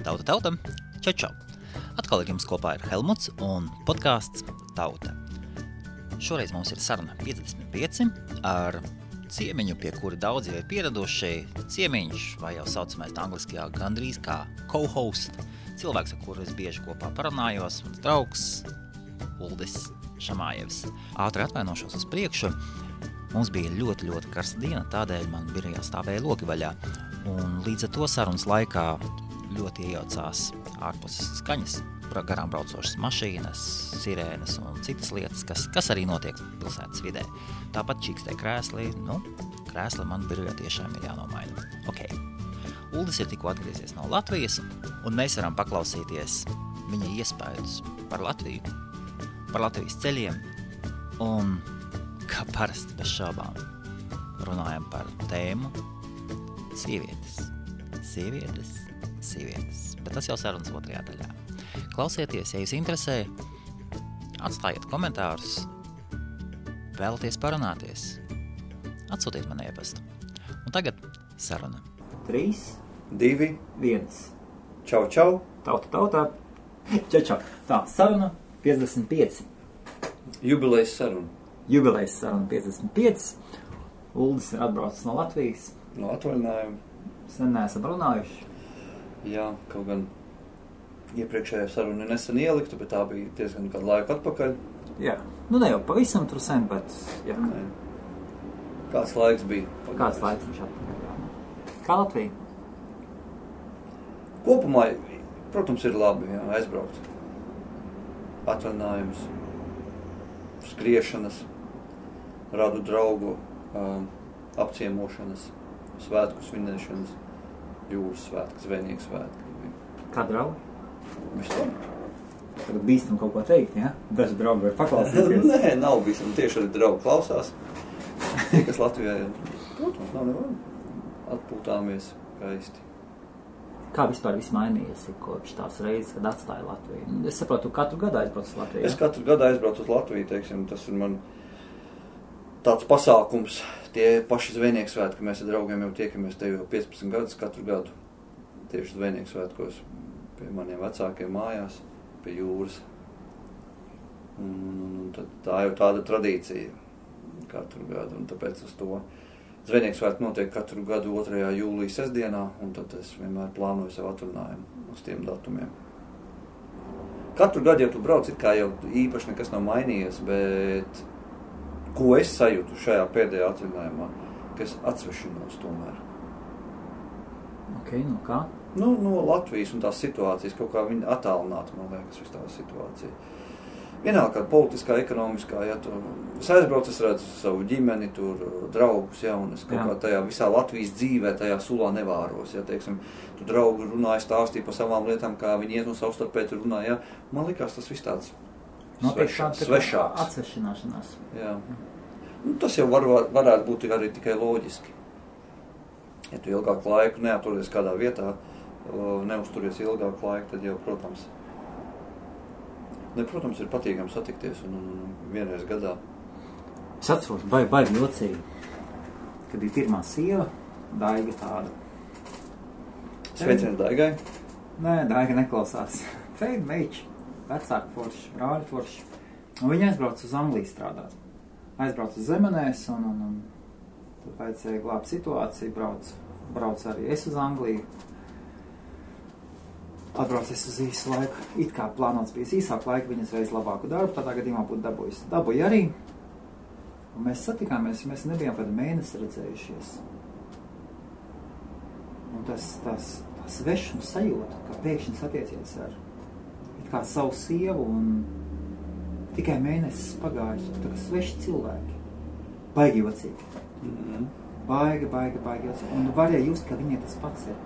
Tauta, čau! Atkal ar jums kopā ir Helmuts un podcasts Tauta. Šoreiz mums ir saruna 55 ar ciemiņu, pie kura daudzi jau ir pieraduši. Ciemiņš, vai jau saucamais angliskajā gandrīz kā co-host, cilvēks, ar kuru es bieži kopā parunājos, mans draugs Uldis Šamājevs. Ātri atvainošos uz priekšu. Mums bija ļoti karsta diena, tādēļ man birojā stāvēja logi vaļā. Un līdz ar to sarunas laikā ļoti iejaucās ārpuses skaņas, garām braucošas mašīnas, sirēnas un citas lietas, kas arī notiek pilsētas vidē. Tāpat čīkstē krēsli, krēsli man birojā tiešām ir jānomaina. Ok. Uldis ir tikko atgriezies no Latvijas, un mēs varam paklausīties viņa iespējus par Latviju, par Latvijas ceļiem, un kā parasti bez šaubām runājam par tēmu sievietes, bet tas jau sarunas otrajā daļā. Klausieties, ja jūs interesē, atstājiet komentārus, vēlaties parunāties, atsūtiet man e-pastu. Un tagad saruna. 3, 2, 1. Čau. Tauta. Čau. Tā, saruna 55. Jubilejas saruna 55. Uldis ir atbraucis no Latvijas. No atvaļinājuma. Sen neesam runājuši. Jā, kaut gan iepriekšējā saruna nesen ieliktu, bet tā bija diezgan kādu laiku atpakaļ. Jā, ne jau pavisam tur sen, bet jā. Nē. Kāds laiks bija? Kāds laiks viņš atpakaļ, jā. Kā Latvija? Kopumā, protams, ir labi, jā, aizbraukt. Atvaļinājums, skriešanas, radu draugu, apciemošanas, svētku svinēšanas, jūras svētki, zvejnieku svētki. Kā draugi? Vispār? Tagad bīstam kaut ko teikt, ja? Daži draugi var paklausīties. Nē, nav bīstam. Tieši arī draugi klausās. Tie, kas Latvijā ir, protams, nav nevar. Atpūtāmies skaisti. Kā vispār viss mainījies kopš tās reizes, kad atstāja Latviju? Es saprotu, katru gadu aizbrauc uz Latviju. Es katru gadu aizbraucu uz Latviju, teiksim, tas ir man tāds pasākums. Tie paši zvejnieku svētki, mēs ar draugiem jau tiekamies te jau 15 gadus katru gadu. Tieši zvejnieku svētkos pie maniem vecākiem mājās, pie jūras. Un tā jau tāda tradīcija katru gadu, un tāpēc uz to zvejnieku svētki notiek katru gadu 2. jūlijas sestdienā, un tad es vienmēr plānoju savu atvaļinājumu uz tiem datumiem. Katru gadu, ja tu brauc, it kā jau īpaši nekas nav mainījies, bet ko es sajūtu šajā pēdējā atvaļinājumā, ka es atsvešinos tomēr. Ok, no kā? No Latvijas un tās situācijas, kaut kā viņa attālināta, man liekas, viss tā situācija. Vienalga, kāda politiskā, ekonomiskā, ja tu es aizbraucu, es redzu savu ģimeni, tur draugus, ja, un es kaut kā tajā visā Latvijas dzīvē, tajā sulā nevāros, ja, teiksim, tu draugi runāja, stāstīja par savām lietām, kā viņi iet un savstarpēji tur runāja, ja, man likās tas viss tāds svešāks. Atsvešināšanās. Jā. Tas jau varētu būt arī tikai loģiski. Ja tu ilgāku laiku neaturies kādā vietā, neusturies ilgāku laiku, tad jau, protams, ir patīkami satikties un vienreiz gadā. Es atceros, baigi jocīgi, kad bija pirmā sieva, Daiga tāda. Sveiciens Daigai? Nē, Daiga neklausās. Feida meiči, vecāku forši, brāļu forši. Un viņa aizbrauca uz Angliju strādāt. Aizbrauca uz Zemenēs un tad vajadzēja glābt situāciju, brauc arī es uz Angliju. Atbraucies uz īsu laiku. It kā plānots bija īsāk laika, viņas veids labāku darbu, tādā gadījumā būtu dabūjusi. Dabūja arī. Un mēs satikāmies, mēs nebijām kādu mēnesi redzējušies. Un tas svešums sajūta, kā pēkšņi satiecies ar it kā savu sievu un tikai mēnesis pagājis, tā kā sveši cilvēki. Baigi jocīgi. Baigi jocīgi. Un varēja just, ka viņai tas pats ir.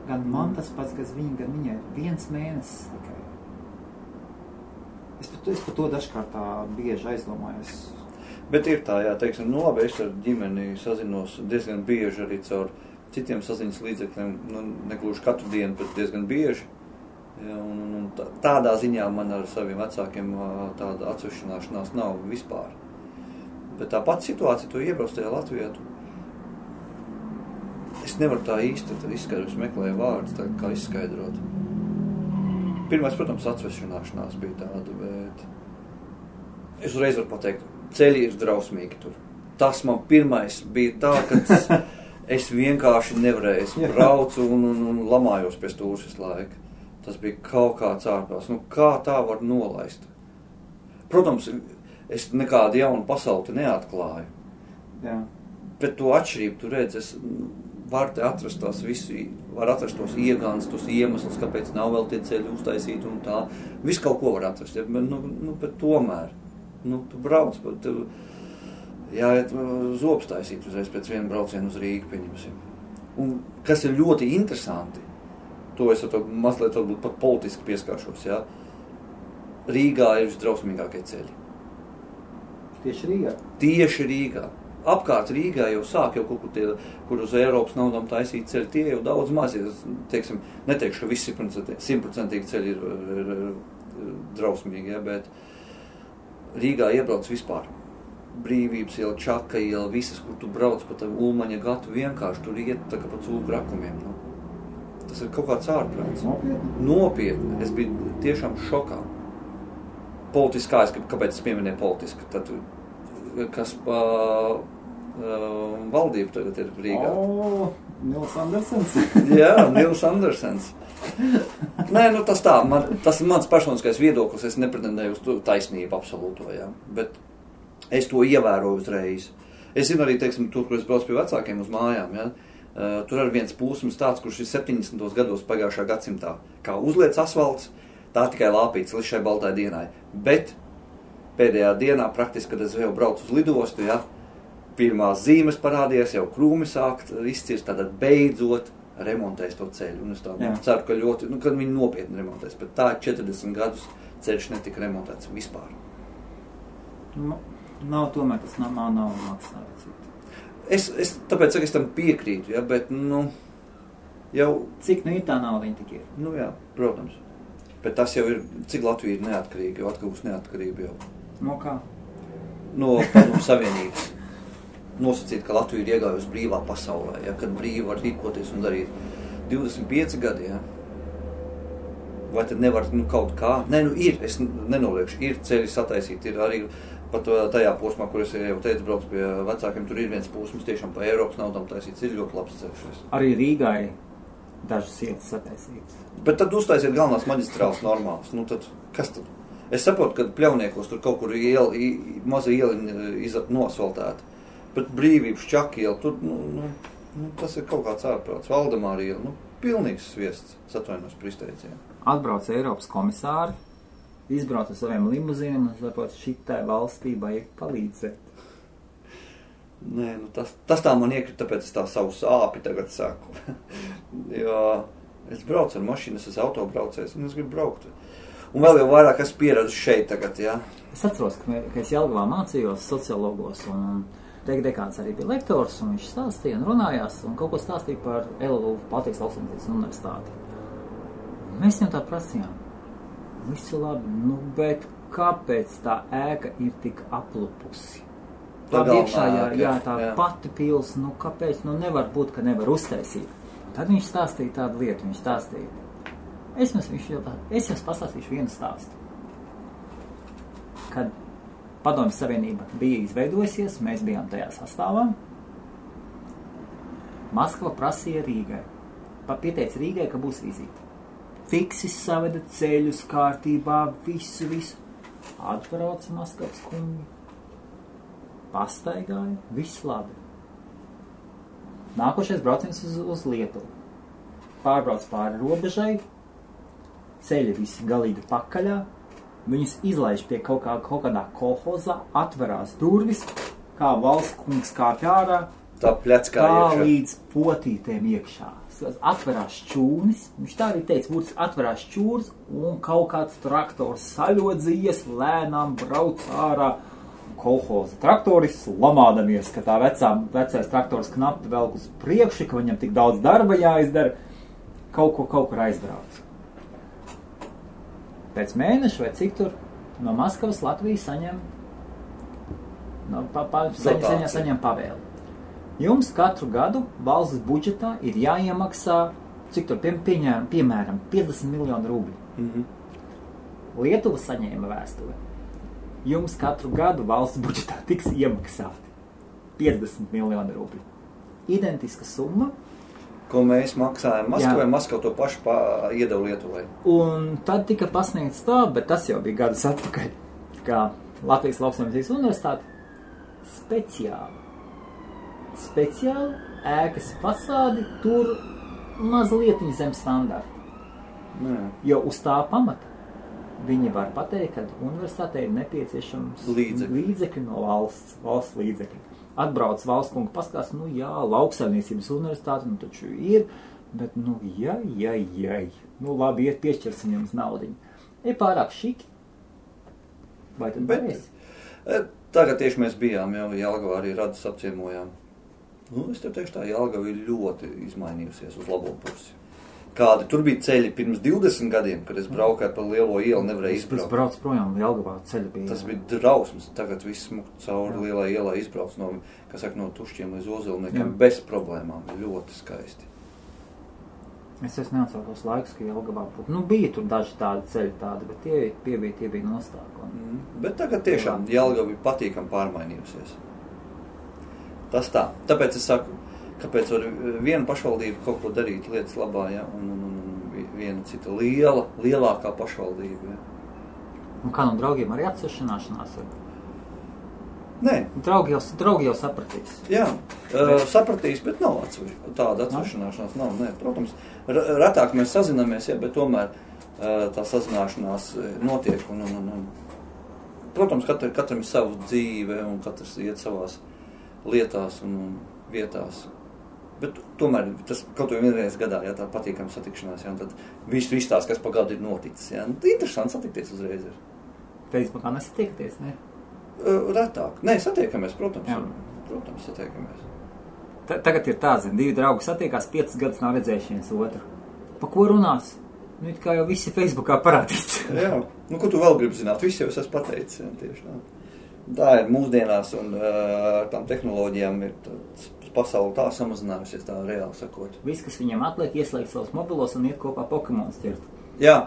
Gan man tas pats, gan viņai 1 mēnesis tikai. Es par to dažkārt tā bieži aizdomājos. Bet ir tā, jā, teiksim, labi, es ar ģimeni sazinos diezgan bieži arī caur citiem saziņas līdzekļiem, negluži katru dienu, bet diezgan bieži. Ja, un tādā ziņā man ar saviem vecākiem tāda atsvešināšanās nav vispār. Bet tā pati situācija, tu iebrauc tajā Latvijā, es nevaru tā īsti izskaidrot, es meklēju vārdus, tā kā izskaidrot. Pirmais, protams, atsvešināšanās bija tāda, bet es uzreiz varu pateikt, ceļi ir drausmīgi tur. Tas man pirmais bija tā, ka es vienkārši nevarēju, es braucu un lamājos pie stūras visu laiku. Tas bija kaut kāds ārprāts. Nu, kā tā var nolaist? Protams, es nekādu jaunu pasauli neatklāju. Jā. Bet to atšķirību, tu redz, es varu te atrast tās visu, var atrast tos iegāns, tos iemeslus, kāpēc nav vēl tie ceļi uztaisīti un tā. Visu kaut ko var atrast, ja? Bet tomēr, tu brauc, bet jāiet zobs taisīt uzreiz pēc viena brauciena uz Rīgu, pieņemsim. Un kas ir ļoti interesanti, to es mazliet pat politiski pieskāršos, ja? Rīgā ir visdrausmīgākie ceļi. Tieši Rīgā? Tieši Rīgā. Apkārt Rīgā jau sāk jau kaut kur uz Eiropas naudām taisīt ceļi, tie jau daudz mazi, teiksim, neteikšu, ka visi 100% ceļi ir drausmīgi, ja, bet Rīgā iebrauc vispār. Brīvības iela, Čaka iela, visas, kur tu brauc pa tavu Ulmaņa gatu, vienkārši tur iet tā kā pa cūku rakumiem. Nu. Tas ir kaut kāds ārprāts. Nopietni. Es biju tiešām šokā. Politiskā, kāpēc es pieminēju politiski, tad, kas pa valdību tagad ir Rīgā. Nils Andersens. Jā, Nils Andersens. Nē, tas tā, tas ir mans personiskais viedoklis, es nepretendēju uz taisnību absolūto, jā, bet es to ievēroju uzreiz. Es zinu arī, teiksim, tur, kur es braucu pie vecākiem uz mājām, ja, tur ir viens pūsums tāds, kurš ir 70. gados pagājušā gadsimtā, kā uzliec asfalts, tā tikai lāpīts līdz šai baltai dienai, bet pēdējā dienā praktiski, kad es jau braucu uz lidostu, ja, pirmās zīmes parādījās, jau krūmi sākt izcirst, tātad beidzot remontēs to ceļu. Un es tā ceru, ka ļoti, kad viņi nopietni remontēs, bet tā 40 gadus ceļš netika remontēts vispār. Nav tomēr, tas nav maksājums. Tāpēc, es tam piekrītu, ja, bet, jau... Cik ir tā nauda viņa tik ir? Jā, protams. Bet tas jau ir, cik Latvija ir neatkarīga, jau atkarīgs neatkarība jau. No kā? No Padomu Savienības. Nosacīt, ka Latvija ir iegājusi brīvā pasaulē, ja, kad brīvi var rīkoties un darīt 25 gadi, ja. Vai tad nevar, kaut kā? Nē, ir, es nenoliekšu, ir ceļi sataisīt, ir arī pat tajā posmā, kur es jau teicu, braucu pie vecākiem, tur ir viens posms tiešām pa Eiropas naudām taisīts, ir ļoti labs ceļš. Arī Rīgai dažas ietas sataisītas. Bet tad uztaisiet galvenās maģistrāles normālas, tad kas tad? Es saprotu, ka Pļauniekos tur kaut kur maza iela nosvaltēta, bet Brīvības Čaka iela, tur, tas ir kaut kāds ārprāts, Valdemāra iela, pilnīgs sviests, atvainojos par izteicienu. Atbrauc Eiropas komisāri, izbrauc ar saviem limuzīniem un sapot, šitai valstī vajag palīdzēt. Nē, tas tā man iekrita, tāpēc es tā savu sāpi tagad saku. Jo es braucu ar mašīnu, es esmu autobraucējs un es gribu braukt. Un vēl jau vairāk es pieredzu šeit tagad, jā. Es atceros, ka es Jelgavā mācījos sociologos un dekāns arī bija lektors un viņš stāstīja un runājās un kaut ko stāstīja par LLU, Baltijas Lauksaimniecības universitāti. Mēs viņam tā prasījām. Viss ir labi, bet kāpēc tā ēka ir tik aplupusi? Tā iekšā, tā pati pils, kāpēc, nevar būt, ka nevar uztaisīt. Tad viņš stāstīja tādu lietu, viņš stāstīja. Es jums pastāstīšu vienu stāstu. Kad Padomju Savienība bija izveidojusies, mēs bijām tajā sastāvā, Maskava prasīja Rīgai, pieteica Rīgai, ka būs vizīte. Fiksi saveda ceļus kārtībā, visu. Atbrauca Maskavas kungi, pastaigāja, viss labi. Nākošais brauciens uz Lietuvu. Pārbrauc pāri robežai, ceļi visi galīgi pakaļā, viņus izlaiž pie kaut kādā kolhozā, atverās durvis, kā valsts kungs kāpj ārā, tā pļackā iekšā. Līdz potītēm iekšā. Atverās čūnis, viņš tā arī teica, būtiski atverās čūrs un kaut kāds traktors saļodzījies, lēnām brauc ārā. Kolhoza traktoris lamādamies, ka tā vecais traktors knapi velk uz priekšu, ka viņam tik daudz darba jāizdara, kaut kur aizbrauc. Pēc mēneša vai cik tur no Maskavas Latvija saņem pavēli. Jums katru gadu valsts budžetā ir jāiemaksā, cik tur piemēram 50 miljonu rubļu. Lietuva saņēma vēstuli. Jums katru gadu valsts budžetā tiks iemaksāti 50 miljonu rubļu. Identiska summa. Ko mēs maksājam Maskavai, Maskava to pašu iedeva Lietuvai. Un tad tika pasniegts tā, bet tas jau bija gadus atpakaļ, kā Latvijas Lauksaimniecības universitāte speciāli ēkas fasādi tur mazliet zem standarta. Jo uz tā pamata viņi var pateikt, ka universitātei ir nepieciešams līdzekļi no valsts līdzekļi. Atbrauc valsts kungu paskās, lauksaimniecības universitāte, taču ir, bet, labi, piešķirsim jums naudiņu. Ir pārāk šiki. Vai tad varēsi? Tagad tieši mēs bijām, Jelgavā arī Radus apciemojām. Es tev teikšu tā, Jelgava ir ļoti izmainījusies uz labo pusi. Kādi tur bija ceļi pirms 20 gadiem, kad es braukāju pa lielo ielu, nevarēju izbraukt. Es braucu projām, Jelgavā ceļi bija. Tas bija drausmas. Tagad viss smukt cauri lielā ielā izbrauc no Tušķiem līdz Ozolniekiem bez problēmām. Ļoti skaisti. Es neatceros laikus, ka Jelgavā būtu. Bija tur daži tādi ceļi bet tie bija nostāki. Bet tagad tiešām Jelgava ir patīkami pārmainījusies. Tas tā. Tāpēc es saku, kāpēc var viena pašvaldība kaut ko darīt lietas labā, un viena cita lielākā pašvaldība. Un kā no draugiem arī atsešanāšanās? Nē. Draugi jau sapratīs. Jā, sapratīs, bet nav tāda atsešanāšanās. Nav, nē. Protams, retāk mēs sazināmies, bet tomēr tā sazināšanās notiek. Protams, katram ir savu dzīve, un katrs iet savās lietās un vietās. Bet tomēr tas kaut vai vienreiz gadā, tā patīkama satikšanās, un tad viss tās, kas pa gadu ir noticis. Interesanti satikties uzreiz. Facebookā nesatiekties, ne? Retāk. Nē, satiekamies, protams. Protams, satiekamies. Tagad ir tā, divi draugi satiekās, 5 gadus nav redzējuši viens otru. Pa ko runās? It kā jau visi Facebookā parādīts. Jā, ko tu vēl gribi zināt? Visi jau es esmu pateicis, tieši tā. Tā ir mūsdienās, un tām tehnoloģijām ir pasauli tā samazinājusies, tā reāli sakot. Viss, kas viņam atliek, ieslēgt savus mobilos un iet kopā Pokemonus ķert. Jā.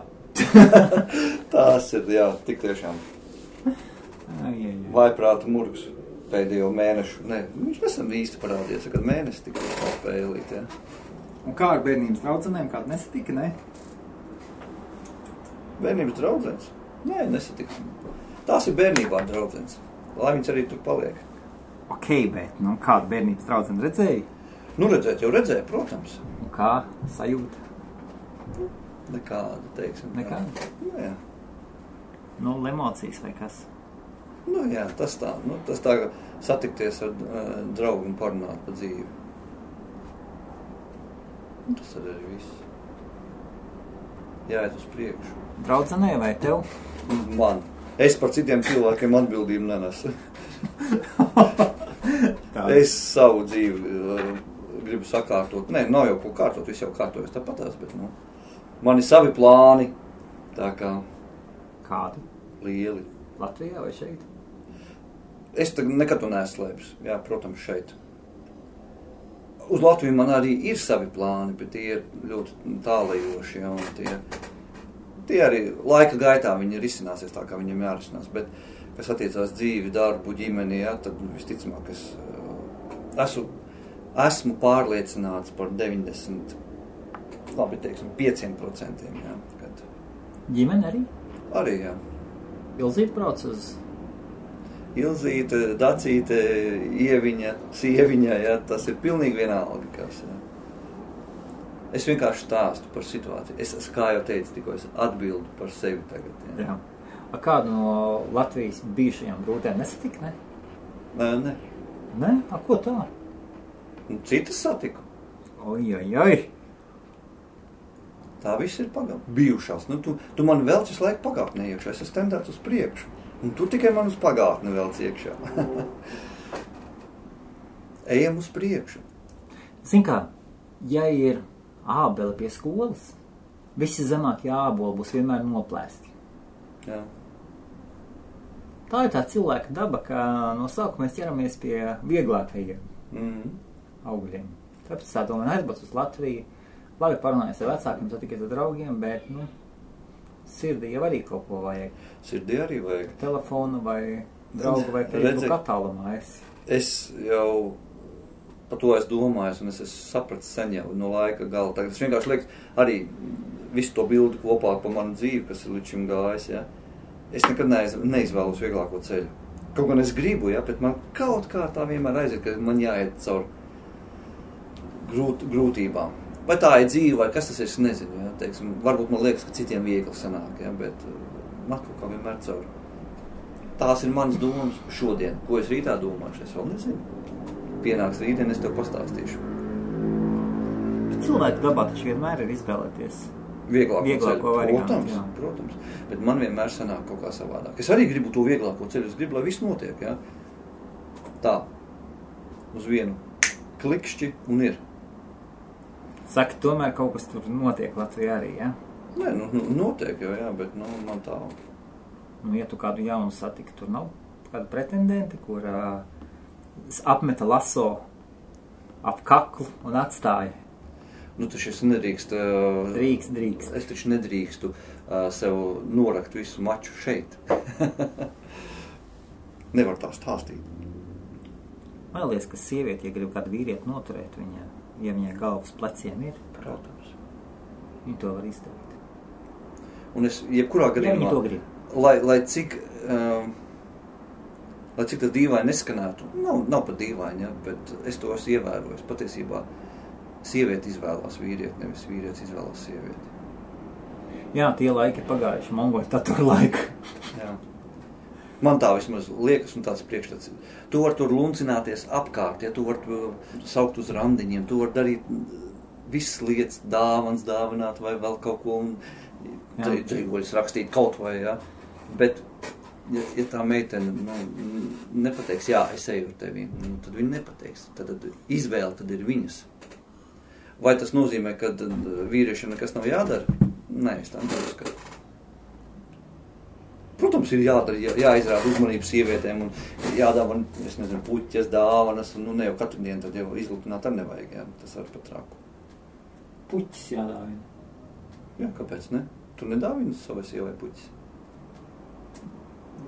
Tās ir, tik tiešām. Vaiprāta murgs pēdējo mēnešu. Nē, viņš nesam īsti parādījies, kad mēnesi tikai spēlīt, Un kā ar bērnības draudzenēm? Kāda nesatika, ne? Bērnības draudzenes? Nē, nesatika. Tās ir bērnībā draudzenes. Lai viņas arī tur paliek. Ok, bet, kādu bērnības draudzeni redzēji? Redzēju, protams. Un kā sajūta? Nekāda, teiksim. Nekāda? Jā. Emocijas vai kas? Jā, tas tā. Tas tā, satikties ar draugu un parunāt pa dzīvi. Tas arī viss. Jāiet uz priekšu. Draudzenē vai tev? Man. Es par citiem cilvēkiem atbildību nenesu. Es savu dzīvi gribu sakārtot. Nē, nav jau ko kārtot, viss jau kārtojas tāpatās, bet man ir savi plāni. Tā kā... Kādi? Lieli. Latvijā vai šeit? Es nekad to neslēpus. Jā, protams, šeit. Uz Latviju man arī ir savi plāni, bet tie ir ļoti tālajoši, un tie arī laika gaitā viņi risināsies tā, kā viņiem jārisinās, bet, kas attiecās dzīvi, darbu, ģimeni, tad visticamāk, es esmu pārliecināts par 95%. Kad... Ģimeni arī? Arī, jā. Ilzīte brauc uz... Ilzīte, Dacīte, Ieviņa, Sieviņa, tas ir pilnīgi vienalga, kas, Es vienkārši stāstu par situāciju. Es, kā jau teicu, tikko es atbildu par sevi tagad. Jā. Kādu no Latvijas bijušajām brūtēm nesatika, ne? Nē. Nē? Ko tā? Citas satiku. Oi. Tā viss ir bijušās. Tu man velc visu laiku pagātnē iekšā. Es esmu tendēts uz priekšu. Un tu tikai man uz pagātni velc iekšā. Ejam uz priekšu. Zin kā, ja ir ābeli pie skolas, visi zemākie āboli būs vienmēr noplēsti. Jā. Tā ir tā cilvēka daba, ka no sākuma mēs ķeramies pie vieglākajiem. augļiem. Tāpēc tā domāju, aizbrauc uz Latviju, labi parunājies ar vecākiem, satikies ar draugiem, bet, sirdī jau arī kaut ko vajag. Sirdī arī vajag. Telefonu vai draugu vai Facebook attālumā esi. Es jau par to es domāju, un es esmu sapratis sen jau no laika gala. Tagad es vienkārši liekas arī visu to bildi kopā par manu dzīvi, kas ir līdz šim gājis, ja. Es nekad neizvēlos vieglāko ceļu. Kaut gan es gribu, ja, bet man kaut kā tā vienmēr aiziet, ka man jāiet caur grūtībām. Vai tā ir dzīve, vai kas tas ir, es nezinu, ja, teiksim. Varbūt man liekas, ka citiem viegli sanāk, ja, bet man kaut kā vienmēr caur. Tās ir manas domas šodien. Ko es rītā domāšu, es vēl nezinu. Pienāks rītdien, es tev pastāstīšu. Bet cilvēku dabā taču vienmēr ir izvēlēties vieglāko variantu. Protams. Bet man vienmēr sanāk kaut kā savādāk. Es arī gribu to vieglāko ceļu. Es gribu, lai viss notiek, ja. Tā. Uz vienu klikšķi un ir. Saka, tomēr kaut kas tur notiek Latvijā arī, ja? Nē, notiek jau, jā, bet, man tā... Ja tu kādu jaunu satiki, tur nav kāda pretendenti, kur apmeta laso ap kaklu un atstāja. Taču es nedrīkst... Drīkst. Es taču nedrīkstu sev norakt visu maču šeit. Nevar tā stāstīt. Man liekas, ka sievieti, ja grib kādu vīrieti noturēt, ja viņai galvas pleciem ir, protams, viņa to var izdarīt. Un es jebkurā gadījumā... Ja viņa to grib. Lai cik tas dīvaini neskanētu, nav pat dīvaini, ja, bet es to esmu ievērojis. Patiesībā sievieti izvēlās vīrieti, nevis vīrietis izvēlās sievieti. Jā, tie laiki ir pagājuši, mongoļu tatur laika. Jā. Man tā vismaz liekas un tāds priekšstats. Tu var tur luncināties apkārt, ja tu var saukt uz randiņiem, tu var darīt visas lietas, dāvans dāvināt vai vēl kaut ko un trīgoļus rakstīt kaut vai, ja. Bet, ja tā meitene nepateiks, jā, es eju ar tevi, tad viņa nepateiks. Tad izvēle tad ir viņas. Vai tas nozīmē, ka vīriešiem nekas nav jādara? Nē, es tā neuzskatu. Protams, ir jāizrāda uzmanību sievietēm un jādāvana, es nezinu, puķes, dāvanas, un ne jau katru dienu tad jau izlūkināt ar nevajag, jā, tas ar pat traku. Puķes jādāvina? Jā, kāpēc ne? Tu nedāvini savai sievai puķes?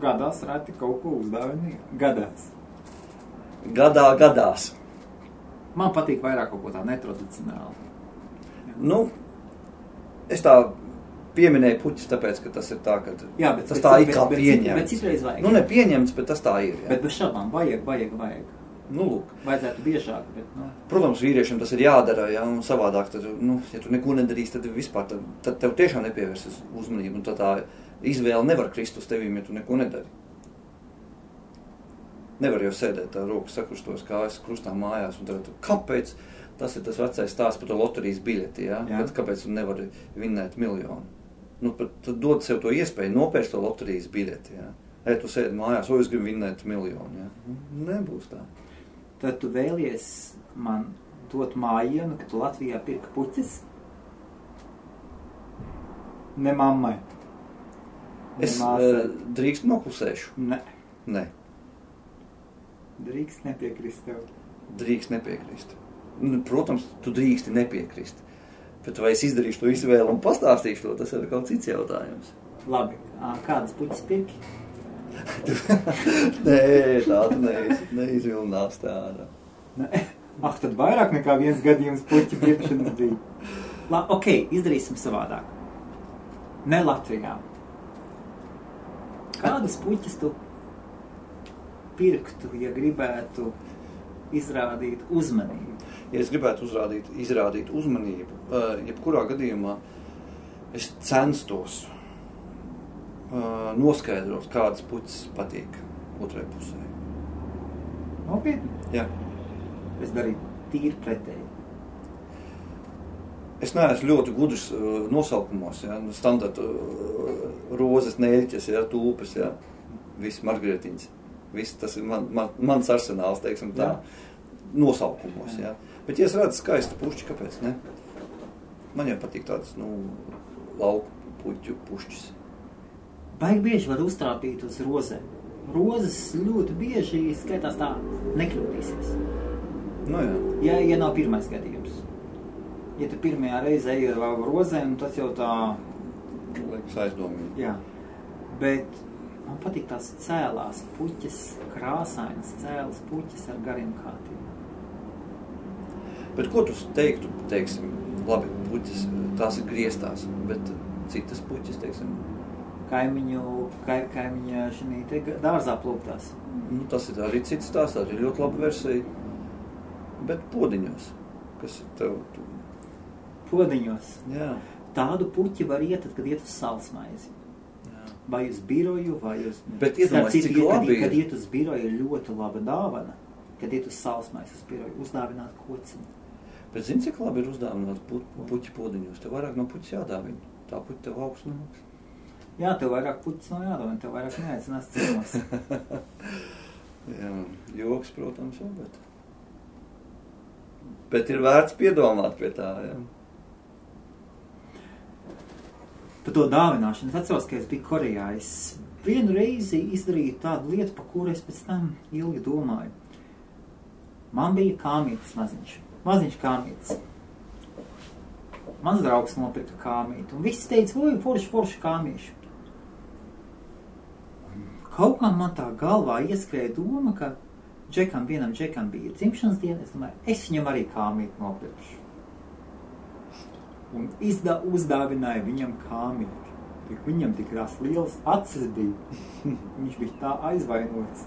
Gadās reti kaut ko uzdāvini. Gadās. Gadās. Man patīk vairāk kaut ko tā netradicionāli. Es tā pieminēju puķis, tāpēc, ka tas ir tā, ka jā, tas tā ir kā pieņemts. Bet citreiz vajag. Ne pieņemts, bet tas tā ir. Jā. Bet bez šābām vajag. Lūk. Vajadzētu biežāk, bet, Protams, vīriešiem tas ir jādara, ja, un savādāk, tad, ja tu neko nedarīsi, tad vispār, tad tev tiešām nepievērsies uzmanību, un tad tā izvēle nevar krist uz tevīm, ja tu neko nedari. Nevar jau sēdēt tā rokas sakrustos kājas krustā mājās, un tad, kāpēc tas ir tas vecais stāsts par to loterijas biļeti, ja? Kāpēc tu nevari vinnēt miljonu? Tad dod sev to iespēju nopērst to loterijas biļeti, ja? Ja tu sēdi mājās, es gribu vinnēt miljonu, ja? Nebūs tā. Tad tu vēlies man dot mājienu, ka tu Latvijā pirka puķis? Ne mammai. Es drīkst noklusēšu? Ne. Drīkst nepiekrist tev? Drīkst nepiekrist. Protams, tu drīksti nepiekrist. Bet vai es izdarīšu to izvēlu un pastāstīšu to, tas ir kaut cits jautājums. Labi. Kādas puķis pirki? Nē, tāda neizvilnās tāda. Tad vairāk nekā viens gadījums puķi pirkšanas bija. Ok, izdarīsim savādāk. Ne Latvijā. Kādas puķis tu pirktu, ja gribētu izrādīt uzmanību? Ja es gribētu izrādīt uzmanību, jebkurā gadījumā es censtos noskaidrot, kādas puķis patīk otrai pusē. Nopietni? Jā. Es darīju tīri pretēji. Es neesmu ļoti gudrs nosaukumos, ja, standarta rozes, neļķes, ja, tūpes, ja, viss margrietiņas. Viss tas ir mans arsenāls, teiksim tā, nosaukumos, ja. Bet, ja es redzu skaistu pušķi, kāpēc, ne? Man jau patīk tāds, lauku puķu pušķis. Baigi bieži var uztrāpīt uz rozēm. Rozes ļoti bieži skaitās tā nekļūdīsies. Nu, jā. Ja nav pirmais gadījums. Ja tu pirmajā reizē ej ar rozēm, tas jau tā... Liekas aizdomīgi. Jā. Bet man patīk tās cēlās puķes, krāsainas cēlas puķes ar gariem kātiem. Bet ko tu teiktu, teiksim, labi, puķes, tās ir griestās, bet citas puķes, teiksim? Kaimiņa šī te dārzā plūktās. Nu, tas ir arī cits stāsts, tā ir ļoti laba versija. Bet podiņos, kas ir tev? Podiņos? Jā. Tādu puķi var iet, kad iet uz salsmaizi. Jā. Vai uz biroju, vai uz... Bet iedomājies, cik labi ir. Kad iet uz biroju ir ļoti laba dāvana. Kad iet uz salsmaizi uz biroju, uzdāvināt kociņu. Bet zini, cik labi ir uzdāvināt puķi podiņos? Tev vairāk no puķis jādāvina. Tā puķi tev augsts nāks. Jā, tev vairāk puķis nav jādāvina, tev vairāk neaicinās ciemos. Jā, joks, protams, jau, bet ir vērts piedomāt pie tā, jā. Par to dāvināšanu. Es atceros, ka es biju Korejā. Es vienu reizi izdarīju tādu lietu, par kuru es pēc tam ilgi domāju. Man bija kāmītis maziņš. Maziņš kāmītis. Mans draugs nopirka kāmīti. Un viss teica, oi, forši kāmīši. Kaut kā man tā galvā ieskrēja doma, ka vienam džekam bija dzimšanas diena. Es domāju, es viņam arī kāmīti nopirkšu. Un uzdāvināja viņam kāmīti. Viņam tik tās lielas acis bija. Viņš bija tā aizvainots.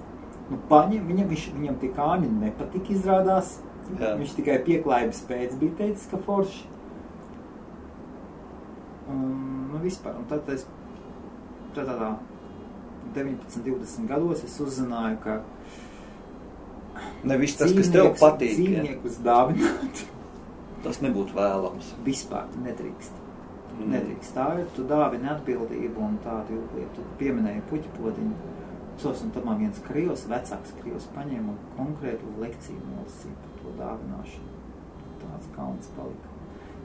Nu, viņam tie kāmīti nepatika izrādās. Jā. Viņš tikai pieklājības pēc bija teicis, ka forši. Nu, vispār. Un tad es tādā 19-20 gados es uzzināju, ka nevis tas, kas tev patīk. Dzīvniekus dāvināt. Tas nebūtu vēlams. Vispār nedrīkst. Nedrīkst. Tā ir, tu dāvini atbildību un tādu lietu. Tu pieminēji puķi podiņu. Un tad man viens vecāks krievs paņēma un konkrētu lekciju nolasīja par to dāvināšanu. Tāds kauns palika.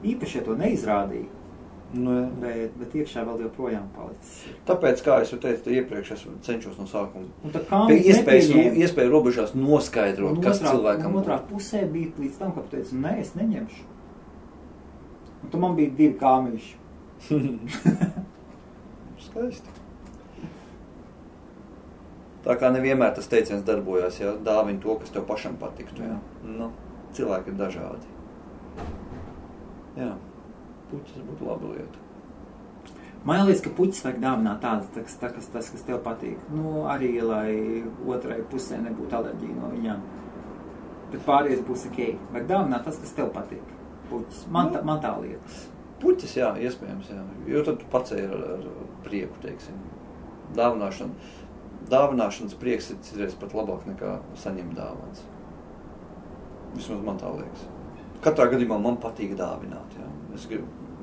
Īpaši, ja to neizrādīja, bet iekšā vēl joprojām palicis. Tāpēc, kā es jau teicu, iepriekš es cenšos no sākuma. Pie iespēju robežās noskaidrot, kas cilvēkam otrā pusē bija līdz tam, ka teicu, nē, es neņemšu. Un tu man bija 2 kāmīši. Skaisti. Tā kā nevienmēr tas teiciens darbojās, ja dāvini to, kas tev pašam patiktu. Jā. Nu, cilvēki ir dažādi. Jā, puķis būtu laba lieta. Man liekas, ka puķis vajag dāvināt tādas, tas, kas tev patīk. Nu, arī, lai otrai pusē nebūtu alerģija no viņām. Bet pārējais būs ok. Vajag dāvināt tas, kas tev patīk. Puķis. Man tā liekas. Puķis, jā, iespējams, jā. Jo tad tu pacēji ar prieku, teiksim. Dāvināšanas prieks ir citreiz pat labāk nekā saņemt dāvāns. Vismaz man tā liekas. Katrā gadījumā man patīk dāvināt, jā.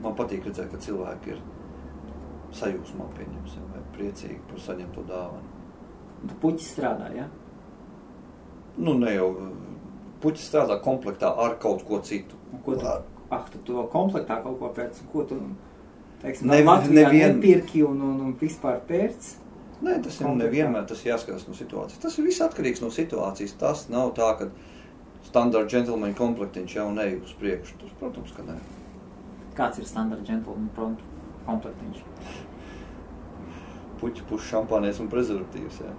Man patīk redzēt, ka cilvēki ir sajūsmā pieņemsim, vai priecīgi par saņemto dāvanu. Tu puķis strādā, jā? Nu, ne jau. Puķis strādā komplektā ar kaut ko citu. Ko tu to komplektā kaut ko pēc, ko tu, teiksim, Latvijā nepirki un vispār pēc? Nē, tas ir nevienmēr, tas jāskatās no situācijas. Tas ir viss atkarīgs no situācijas. Tas nav tā, ka standard gentleman komplektiņš jau neej uz priekšu. Tas, protams, ka nē. Kāds ir standard gentleman komplektiņš? Puķi, puš, šampānies un prezervatīvs, jā.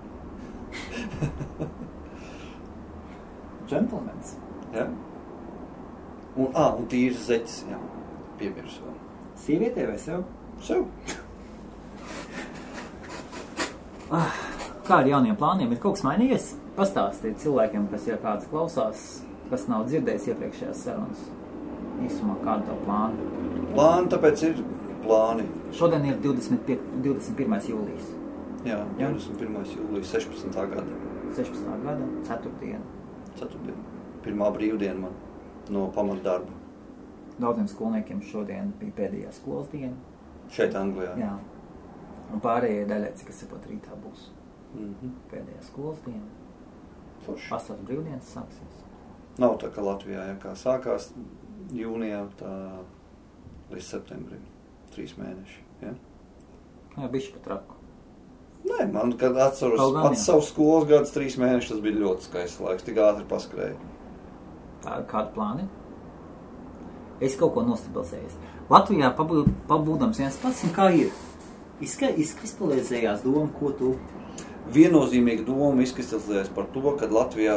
Gentlemans? Jā. Un tīrs zeķis, jā. Piemirsu vēl. Sievietē vai sev? Sev. Kā ar jauniem plāniem? Ir kaut kas mainījies? Pastāstīt cilvēkiem, kas jau kāds klausās, kas nav dzirdējis iepriekšējās sarunas. Īsumā, kāda tev plāna? Plāni, tāpēc ir plāni. Šodien ir 21. jūlijas. Jā, 21. jūlijas 16. gada. 16. gada, 4. Pirmā brīvdiena man no pamatdarba. Daudziem skolniekiem šodien bija pēdējā skolas diena. Šeit Anglijā. Jā. Un pārējie daļai, kas pat rītā būs pēdējā skolas diena. Vasaras brīvdienas sāksies. Nav tā, ka Latvijā, ja kā sākās jūnijā, tā līdz septembrim. 3 mēneši, ja? Jā, bišķi pat raku. Nē, man, kad atceros pats savus skolas gadus 3 mēnešus, tas bija ļoti skaists laiks, tik ātri paskrēja. Kādu plāni? Es kaut ko nostabilizējos. Latvijā pabūdams viens pats, un kā ir? Izkristalizējās doma, ko tu... Viennozīmīga doma izkristalizējās par to, ka Latvijā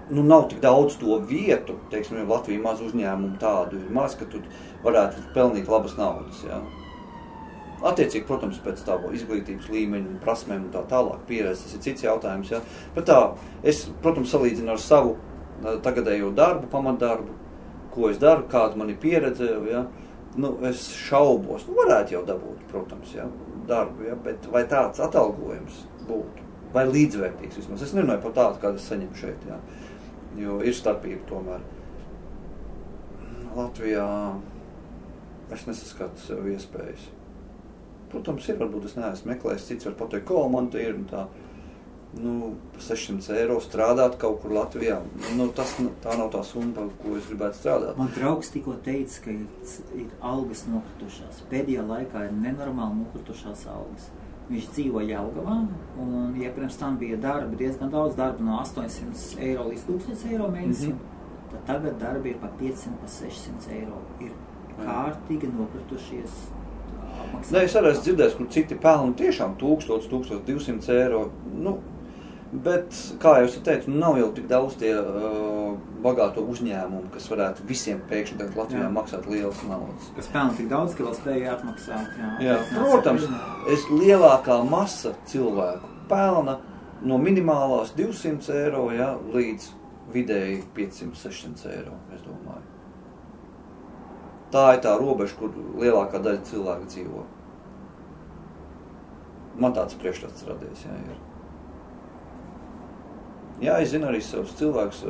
nav tik daudz to vietu, teiksim, ja Latvija maz uzņēmumu tādu ir maz, ka tu varētu pelnīt labas naudas, jā. Attiecīgi, protams, pēc tā izglītības līmeņa un prasmēm un tā tālāk pieredze, tas ir cits jautājums, jā. Bet tā, es, protams, salīdzinu ar savu tagadējo darbu, pamatdarbu, ko es daru, kāda man ir pieredze, jā. Es šaubos, varētu jau dabūt, protams, jā, darbu, jā, bet vai tāds atalgojums būtu, vai līdzvērtīgs vismaz. Es nerunāju par tādu, kādu es saņemu šeit, jā, jo ir starpība tomēr. Latvijā es nesaskatu sev iespējas. Protams, ir, varbūt es neesmu meklējis, cits var pateikt, ko man te ir, un tā, 600 eiro strādāt kaut kur Latvijā. Tā nav tā summa, ko es gribētu strādāt. Man draugs tikko teica, ka ir algas nokritušās. Pēdējā laikā ir nenormāli nokritušās algas. Viņš dzīvo Jelgavā, un pirms tam bija darba, diezgan daudz darba, no 800 eiro līdz 1000 eiro mēnesī. Tad tagad darbi ir pa 500, pa 600 eiro. Ir kārtīgi nokritušies. Es arī esmu dzirdējis, kur citi pelna tiešām 1000, 1200 eiro. Bet, kā jau es teicu, nav jau tik daudz tie bagāto uzņēmumu, kas varētu visiem pēkšņi tagad Latvijā maksāt lielas naudas. Kas pelna tik daudz, ka vēl spēja atmaksāt. Jā, protams, lielākā masa cilvēku pelna no minimālās 200 eiro, jā, līdz vidēji 500-600 eiro, es domāju. Tā ir tā robeža, kur lielākā daļa cilvēku dzīvo. Man tāds priekšstats radies, jā, ir. Jā, es zinu arī savus cilvēkus,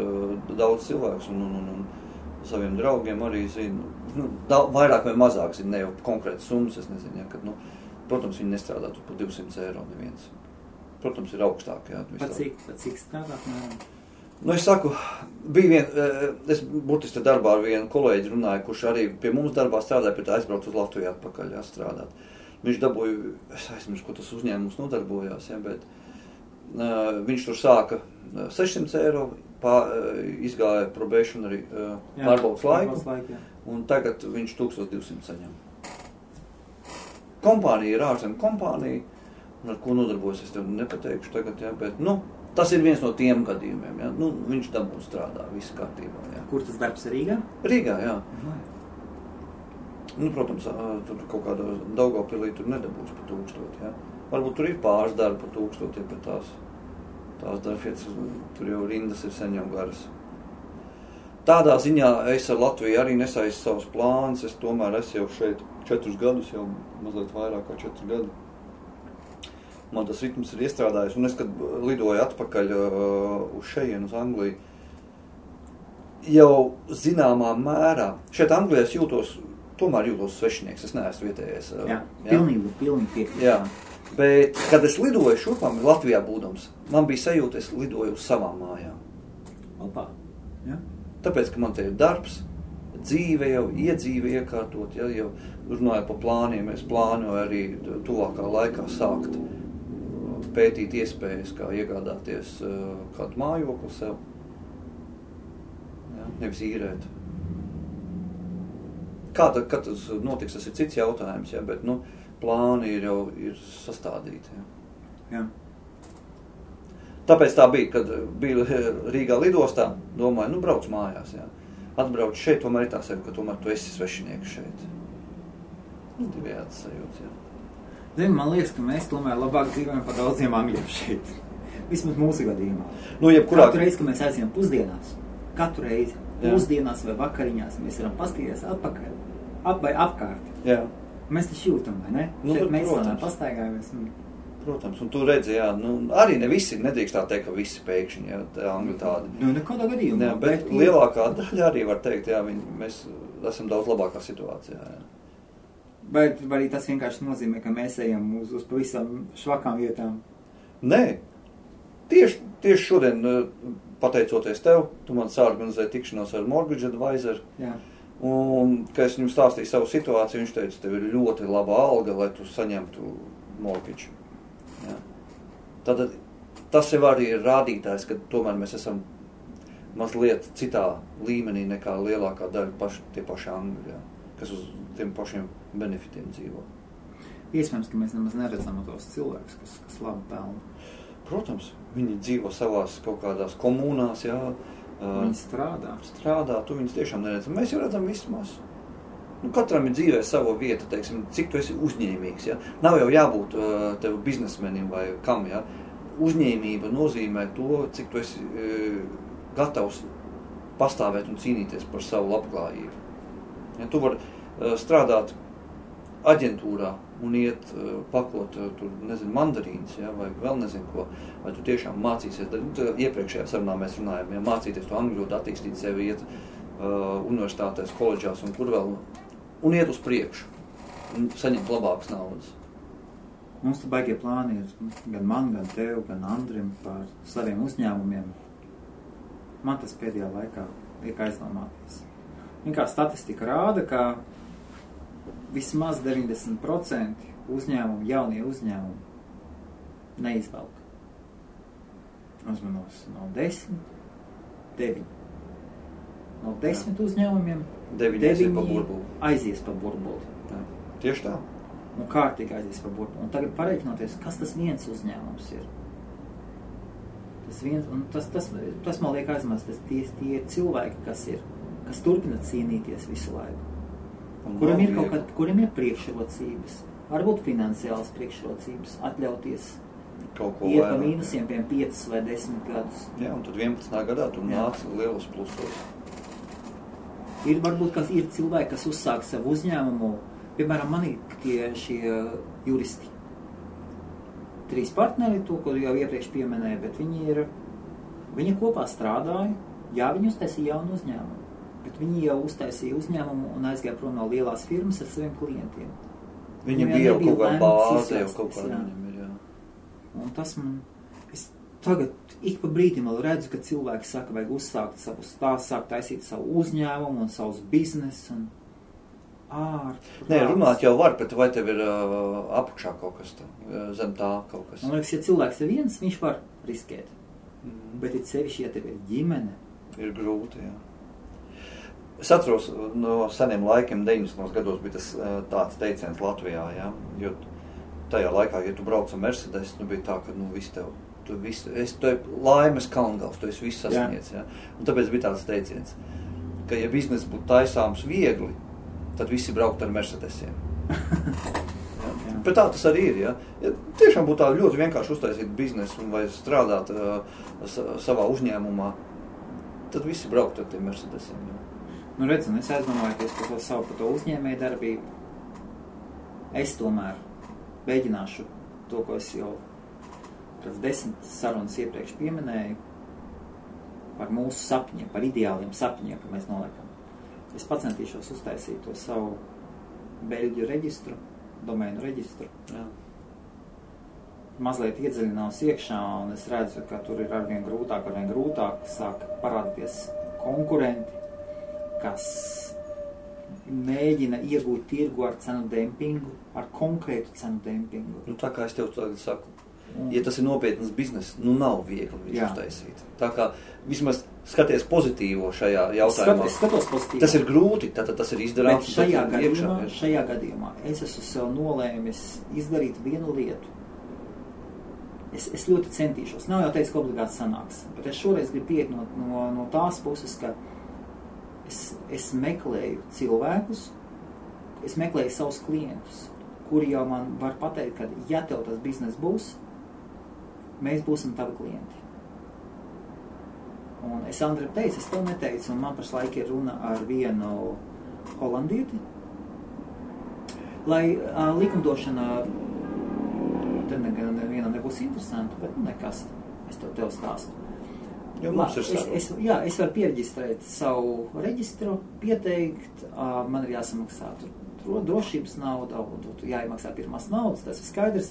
daudz cilvēkus, un saviem draugiem arī zinu, vairāk vai mazāk zinu, ne jau konkrētas summas, es nezinu, ja, kad, protams, viņi nestrādā tur par 200 eiro neviens. Protams, ir augstāk, jā. Pat cik strādāt? Es saku, es burtiski darbā ar vienu kolēģi runāju, kurš arī pie mums darbā strādāja, pie tā aizbraukt uz Latviju atpakaļ, jā, strādāt. Viņš dabūja, es aizmirsu, ko tas uzņēmums nodarbojās, jā, bet viņš tur sāka 600 eiro, izgāja probationary pārbaudas laiku, un tagad viņš 1200 saņem. Kompānija ir ārzemju kompānija, un ar ko nodarbojas, es tev nepateikšu tagad, jā, bet, tas ir viens no tiem gadījumiem, jā, viņš dabū strādā, viss kārtībā, jā. Kur tas darbs ir Rīgā? Rīgā, jā. Protams, tur kaut kādā Daugavpilī tur nedabūs par 1000, jā. Varbūt tur ir pāris darbi par 1000, bet tās darbvietas, tur jau rindas ir sen jau garas. Tādā ziņā es ar Latviju arī nesaistu savus plānus, es tomēr esmu jau šeit 4 gadus, jau mazliet vairāk kā 4 gadi. Man tas ritms ir iestrādājis, un es, kad lidoju atpakaļ uz šejienu, uz Angliju, jau zināmā mērā, šeit Anglijā es tomēr jūtos svešinieks, es neesmu vietējais. Jā, pilnīgi piekrīt. Jā, bet, kad es lidoju šurpām Latvijā būdams, man bija sajūta, es lidoju uz savām mājām. Opā, jā. Tāpēc, ka man te ir darbs, dzīve jau, iedzīve iekārtot, ja, jau runāju par plāniem, es plānoju arī tuvākā laikā sākt pētīt iespējas, kā iegādāties kādu mājokli sev, ja, nevis īrēt. Kad tas notiks, tas ir cits jautājums, ja, bet, plāni ir sastādīti. Ja. Jā. Tāpēc tā bija, kad biju Rīgā lidostā, domāju, brauc mājās, jā. Atbrauc šeit, tomēr ir tā sevi, ka tomēr tu esi svešinieks šeit. Divējāds sajūts, jā. Zini, man liekas, ka mēs tomēr labāk dzīvojam par daudziem angļiem šeit. Vismaz mūsu gadījumā. Katru reizi, kad mēs aizjām pusdienās, pusdienās vai vakariņās, mēs varam paskatīties atpakaļ vai apkārt. Jā. Mēs taču jūtam, vai ne? Šeit mēs tādā pastaigājamies. Protams, un tu redzi, jā, arī ne visi, nedrīkst tā teikt, ka visi pēkšņi, jā, angļi tādi. Nekādā gadījumā. Jā, bet lielākā daļa arī var teikt, jā, mēs esam daudz labākā situācijā, jā. Vai arī tas vienkārši nozīmē, ka mēs ejam uz pavisam švakām vietām? Nē, tieši šodien, pateicoties tev, tu man sāorganizēji tikšanos ar mortgage advisor, jā. Un, kad es viņam stāstīju savu situāciju, viņš teica, tev ir ļoti laba alga, lai tu saņemtu mortgage. Jā. Tad tas jau arī ir rādītājs, ka tomēr mēs esam mazliet citā līmenī nekā lielākā daļa tie paši angļi, jā, kas uz tiem pašiem benefitiem dzīvo. Iespējams, ka mēs nemaz neredzam tos cilvēkus, kas labi pelna. Protams, viņi dzīvo savās kaut kādās komunās, jā. Viņi strādā. Tu viņus tiešām neredzam. Mēs jau redzam vismaz. Katram ir dzīvē sava vieta, teiksim, cik tu esi uzņēmīgs, jā. Nav jau jābūt tev biznesmenim vai kam, jā. Uzņēmība nozīmē to, cik tu esi gatavs pastāvēt un cīnīties par savu labklājību. Ja, tu vari strādāt aģentūrā un iet paklot tur, nezinu, mandarīnas, ja, vai vēl nezinu ko, vai tu tiešām mācīsies. Iepriekšējā sarunā mēs runājam, ja mācīties to angļu valodu, attīstīt sevi, iet universitātēs, koledžās un kur vēl, un iet uz priekšu, un saņemt labākas naudas. Mums te baigie plāni ir gan man, gan tev, gan Andrim par saviem uzņēmumiem. Man tas pēdējā laikā liek aizdomāties. Kā statistika rāda, ka vismaz 90% uzņēmumu, jaunie uzņēmumi neizvelk. Uzmanos no 10, 9. No 10 uzņēmumiem 9 aizies pa burbuli. Jā. Tieši tā. Un kārtīgi aizies pa burbuli. Un tagad pareiķinoties, kas tas viens uzņēmums ir. Tas man liek aizmās, tie cilvēki, kas turpina cīnīties visu laiku. Kuriem ir priekšrocības, varbūt finansiālas priekšrocības, atļauties iet pa mīnusiem, 5 vai 10 gadus. Jā, un tad 11. gadā tu nāc lielos plusos. Varbūt ir cilvēki, kas uzsāk savu uzņēmumu, piemēram, man ir šie juristi. 3 partneri, to, ko jau iepriekš pieminēja, bet viņi kopā strādāja, jā, viņi uztaisīja jaunu uzņēmumu. Bet viņi jau uztaisīja uzņēmumu un aizgāja prom no lielās firmas ar saviem klientiem. Viņi bija jau kaut kāda bāze, jau kaut kāda viņam ir, jā. Un tas es tagad ik pa brīdim vēl redzu, ka cilvēki saka, vajag uzsākt savu stāstu, sākt taisīt savu uzņēmumu un savus biznesu un Nē, runāt jau var, bet vai tev ir apakšā kaut kas tā, zem tā kaut kas? Man liekas, ja cilvēks ir viens, viņš var riskēt. Bet ir sevišķi, ja tev ir ģimene. Ir grūti, jā. Es atceros no seniem laikiem, 90. gados bija tas tāds teiciens Latvijā, jā, jo tajā laikā, ja tu brauc ar Mercedes, bija tā, ka viss tev, tu laimes kalngals, tu esi viss sasniedz, jā. Un tāpēc bija tāds teiciens, ka ja biznes būtu taisāms viegli, tad visi braukt ar Mercedesiem. Bet tā tas arī ir, jā. Ja tiešām būtu tā ļoti vienkārši uztaisīt biznesu vai strādāt savā uzņēmumā, tad visi braukt ar tiem Mercedesiem, jā. Redz, un es aizdomājoties par to uzņēmēju darbību. Es tomēr mēģināšu to, ko es jau 10 sarunas iepriekš pieminēju, par mūsu sapņiem, par ideāliem sapņiem, ka mēs noliekam. Es pacentīšos uztaisīt to savu beļģu reģistru, domēnu reģistru. Jā. Mazliet iedziļinās iekšā, un es redzu, ka tur ir arvien grūtāk sāk parādīties konkurenti, kas mēģina iegūt tirgu ar cenu dempingu, ar konkrētu cenu dempingu. Tā kā es tev tagad saku, ja tas ir nopietnas biznes, nav viegli viņš uztaisīt. Tā kā vismaz skaties pozitīvo šajā jautājumā. Skatos pozitīvo. Tas ir grūti, tas ir izdarāms. Bet šajā gadījumā es esmu sev nolēmis izdarīt vienu lietu. Es ļoti centīšos. Nav jau teicis, ka obligāti sanāks, bet es šoreiz gribu pieiet no tās puses, ka es meklēju cilvēkus, es meklēju savus klientus, kuri jau man var pateikt, ka ja tev tas biznes būs, mēs būsim tavi klienti. Un es Andrim teicu, es tev neteicu, un man pašlaik ir runa ar vienu holandieti, lai likumdošana te nevienam nebūs interesanti, bet nekas, es tev stāstu. Jo mums ir es varu piereģistrēt savu reģistru, pieteikt, man ir jāsamaksā tur drošības nauda, jāiemaksā pirmās naudas, tas ir skaidrs.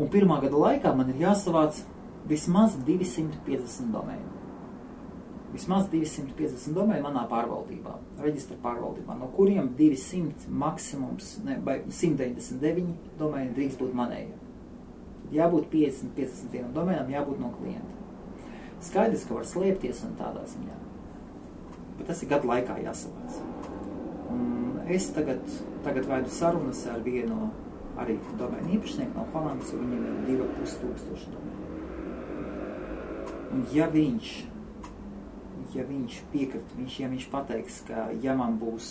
Un 1. gada laikā man ir jāsavāc vismaz 250 domēnu. Vismaz 250 domēnu manā pārvaldībā, reģistra pārvaldībā, no kuriem 200 maksimums, vai 199 domēni drīkst būt manējiem. Jābūt 50 domēnām, jābūt no klienta. Skaidrs, ka var slēpties un tādā ziņā. Bet tas ir gadu laikā jāsavāc. Un es tagad vaidu sarunas ar vienu arī domēnu īpašnieku no Holandas, jo viņam ir 2500 domēnu. Un ja viņš piekrit, ja viņš pateiks, ka ja man būs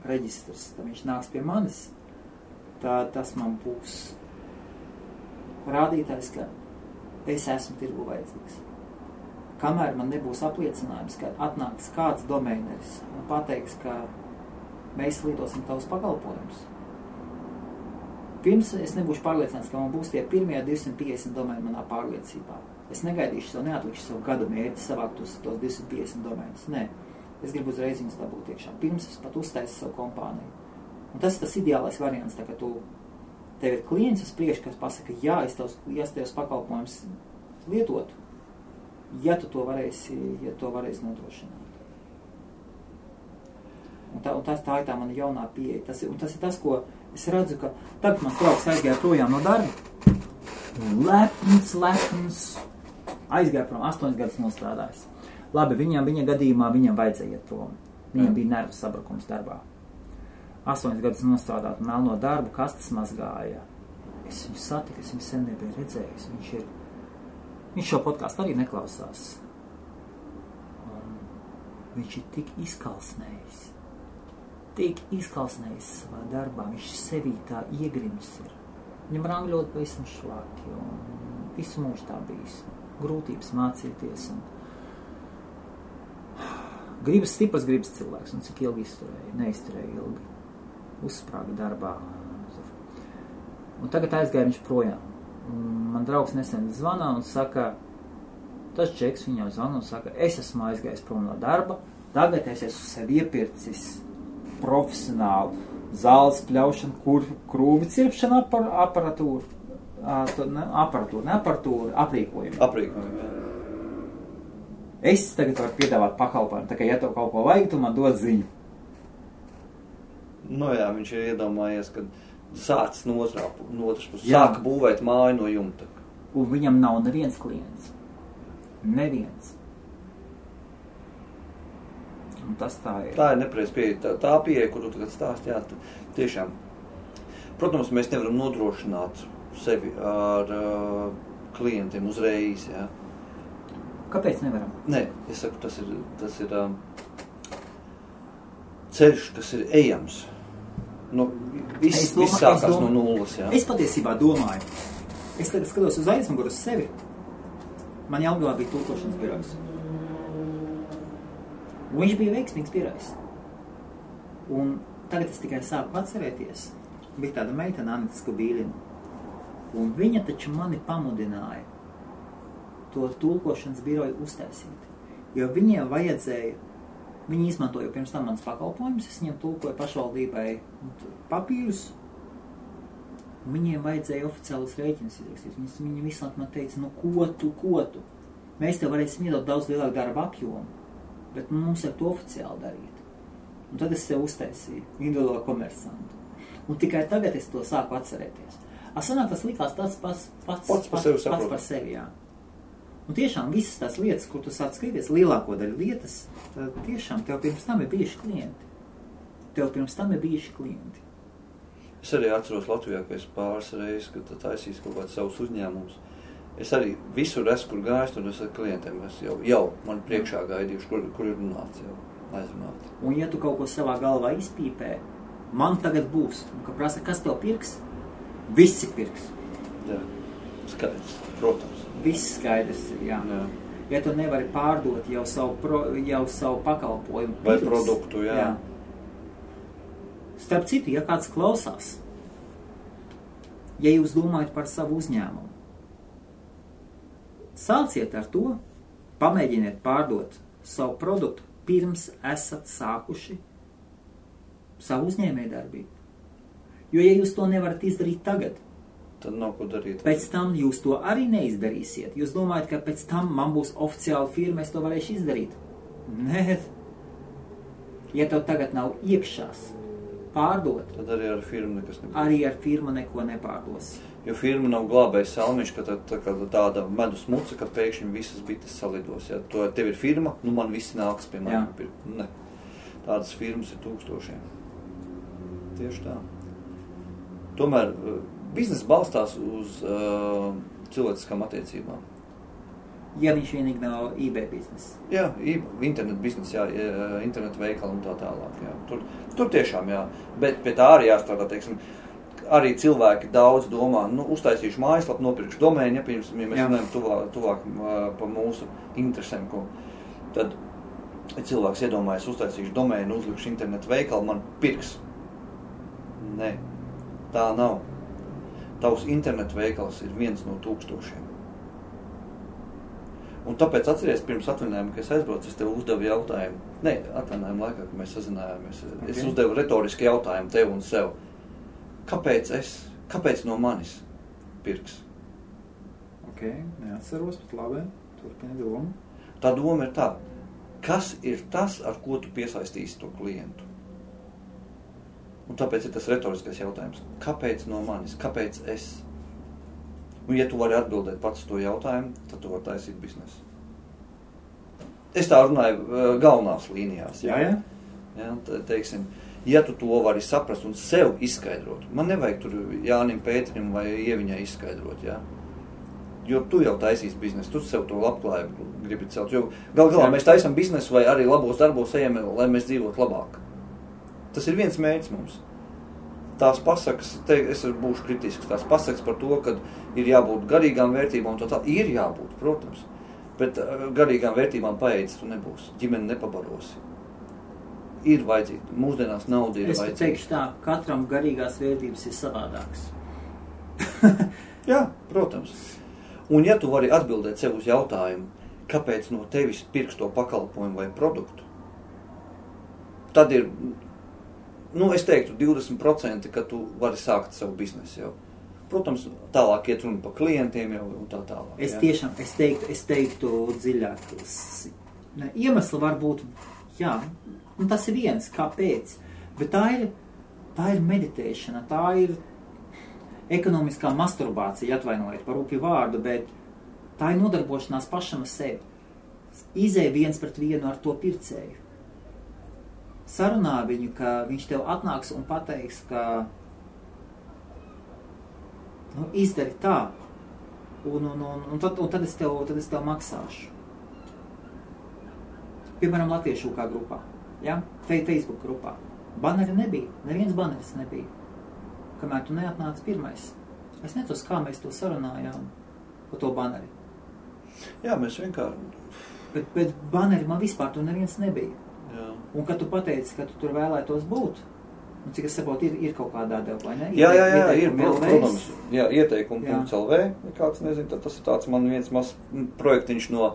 reģistrs, tad viņš nāks pie manis, tad tas man būs rādītājs, ka es esmu tirgu vajadzīgs. Kamēr man nebūs apliecinājums, ka atnāks kāds domēneris un pateiks, ka mēs lietosim tavus pakalpojumus. Pirms es nebūšu pārliecināts, ka man būs tie pirmie 250 domēni manā pārliecībā. Es negaidīšu savu, neatlikšu savu gadu mērķi savākt tos 250 domēnus. Nē, es gribu uzreiz viņus dabūt iekšā. Pirms es pat uztaisu savu kompāniju. Un tas ir tas ideālais variants, tā ka tev ir klients uz priekšu, kas pasaka, jā, es tevs pakalpojums lietotu, ja tu to varēsi nodrošināt. Un tā ir tā mana jaunā pieeja. Tas ir tas, ko es redzu, ka tagad man draugs aizgāja projām no darba. Lepns, aizgāja prom, 8 gadus nostrādājis. Labi, viņa gadījumā viņam vajadzēja iet prom. Viņam bija nervu sabrukums darbā. 8 gadus nostrādāt melno darbu, kastes mazgāja. Es viņu satiku, es viņu sen nebiju redzējis. Viņš šo podcastu arī neklausās. Viņš ir tik izkalsnējis savā darbā. Viņš sevī tā iegrimis ir. Viņam rangļot pavisam šlaki un visu mūžu tā bijis. Grūtības mācīties un stiprs gribas cilvēks un cik ilgi neizturēja ilgi. Uzsprāga darbā. Un tagad aizgāja viņš projām. Man draugs nesen zvana un saka, tas čeks viņam zvana un saka, es esmu aizgājis prom no darba, tagad es esmu sev iepircis profesionālu zāles pļaušanu, krūmi cirpšanu aparatūru, aprīkojumu. Aprīkojumu, jā. Es tagad varu piedāvāt pakalpojumu, tā kā ja tev kaut ko vajag, tu man dod ziņu. Nu jā, viņš ir iedomājies, ka sācis no otras puses. Sāka būvēt māju no jumta. Un viņam nav neviens klients. Neviens. Un tas tā ir. Tā ir nepreiz pieeja. Tā pieeja, kur tu tagad stāsti, jā, tiešām. Protams, mēs nevaram nodrošināt sevi ar klientiem uzreiz, jā. Kāpēc nevaram? Nē, es saku, tas ir ceļš, kas ir ejams. Viss sākās no nulles, jā. Es patiesībā domāju. Es tagad skatos uz aizmuguru uz sevi. Man Jelgavā bija tulkošanas birojs. Un viņš bija veiksmīgs birojs. Un tagad es tikai sāku atcerēties. Bija tāda meitene, Anita Skubīlina. Un viņa taču mani pamudināja to tulkošanas biroju uztaisīt. Jo viņiem vajadzēja, viņi izmantoja pirms tam manas pakalpojumus, es viņiem tulkoju pašvaldībai papīrus, un viņiem vajadzēja oficiālus rēķinus izrakstīt. Viņi visu laiku man teica, ko tu? Mēs tev varēsim iedot daudz lielāku darba apjomu, bet mums ir to oficiāli darīt. Un tad es sev uztaisīju, individuālo komersantu. Un tikai tagad es to sāku atcerēties. Sanāk, tas likās tāds pats par sevi, jā. Un tiešām visas tās lietas, kur tu sāc skatīties, lielāko daļu lietas, tad tiešām tev pirms tam ir bijuši klienti. Es arī atceros Latvijā, ka es pāris reizes, kad taisīs kaut kāds savus uzņēmumus. Es arī visur esmu, kur gājis, tur es ar klientiem. Es jau man priekšā gaidījuši, kur ir runāts jau aizrunāt. Un ja tu kaut ko savā galvā izpīpē, man tagad būs. Un ka prasa, kas tev pirks? Visi pirks. Jā, skaidrs, protams. Viss skaidrs, jā. Ja tu nevari pārdot jau savu pakalpojumu vai produktu, jā. Starp citu, ja kāds klausās, ja jūs domājat par savu uzņēmumu, sāciet ar to, pamēģiniet pārdot savu produktu, pirms esat sākuši savu uzņēmējdarbību. Jo, ja jūs to nevarat izdarīt tagad, tad nav ko darīt. Pēc tam jūs to arī neizdarīsiet. Jūs domājat, ka pēc tam man būs oficiāla firma, es to varēšu izdarīt. Nē. Ja tev tagad nav iekšās pārdot, tad arī ar firmu nekas nebūs. Arī ar firmu neko nepārdos. Jo firma nav glābējis salmiņš, ka tāda medus muca, ka pēkšņi visas bites salidos. Ja tev ir firma, nu man visi nāks pie mani pirkt. Ne. Tādas firmas ir tūkstošiem. Tieši tā. Tomēr bizness balstās uz cilvēciskām attiecībām. Ja viņš vienīgi nav eBay bizness. Jā, internet bizness, jā, internet veikali un tā tālāk. Jā. Tur tiešām, jā. Bet pie tā arī jāstrādā, teiksim, arī cilvēki daudz domā, nu, uztaisīšu mājaslapu, nopirkšu domēnu, ja mēs runājam tuvāk pa mūsu interesēm, tad cilvēks iedomājas, uztaisīšu domēnu, uzlikšu internetu veikalu, man pirks. Nē, tā nav. Tavs internetu veikals ir 1 no 1000. Un tāpēc atceries pirms atvaļinājuma, ka es aizbraucu, es tev uzdevu jautājumu. Nē, atvaļinājuma laikā, kad mēs sazinājāmies, es uzdevu retoriski jautājumu tev un sev. Kāpēc no manis pirks? Ok, neatceros, bet labi, turpini domu. Tā doma ir tā, kas ir tas, ar ko tu piesaistīsi to klientu? Un tāpēc ir tas retoriskais jautājums. Kāpēc no manis? Kāpēc es? Un ja tu vari atbildēt pats to jautājumu, tad tu vari taisīt biznesu. Es tā runāju galvenās līnijās. Jā. Ja, teiksim, ja tu to vari saprast un sev izskaidrot, man nevajag tur Jānim Pēterim vai Ieviņai izskaidrot, ja? Jo tu jau taisīsi biznesu, tu sev to labklājību gribi celt. Jo galā mēs taisam biznesu vai arī labos darbos ejam, lai mēs dzīvotu labāk. Tas ir viens mērķis mums. Tās pasakas, es būšu kritisks, tās pasakas par to, ka ir jābūt garīgām vērtībām, un tā ir jābūt, protams. Bet garīgām vērtībām paēdis tu nebūsi, ģimeni nepabarosi. Ir vajadzīga, mūsdienās nauda ir vajadzīga. Es teikšu tā, katram garīgās vērtības ir savādāks. Jā, protams. Un ja tu vari atbildēt sev uz jautājumu, kāpēc no tevis pirks to pakalpojumu vai produktu, tad ir, es teiktu 20%, ka tu vari sākt savu biznesu jau. Protams, tālāk iet runa par klientiem jau un tā tālāk. Es teiktu dziļāk. Iemesli var būt, jā, un tas ir viens, kāpēc, bet tā ir meditēšana, tā ir ekonomiskā masturbācija, atvainojiet par rupju vārdu, bet tā ir nodarbošanās pašam ar sevi. Izēj 1-1 ar to pircēju. Sarunā viņu, ka viņš tev atnāks un pateiks, ka izdari tā, un tad es tev maksāšu. Piemēram, Latviešu kā grupā, ja? Facebook grupā. Baneri nebija, neviens baneris nebija. Kamēr tu neatnāci pirmais. Es netos, kā mēs to sarunājām par to baneri. Jā, mēs vienkārši... Bet baneri man vispār tu neviens nebija. Jā. Un kad tu pateici, ka tu tur vēlētos būt, un cik es saprotu, ir kaut kādā deva, vai ne? Jā, ir, protams. Jā, ieteikumu.lv, ja kāds nezin, tad tas ir tāds man viens mazs projektiņš no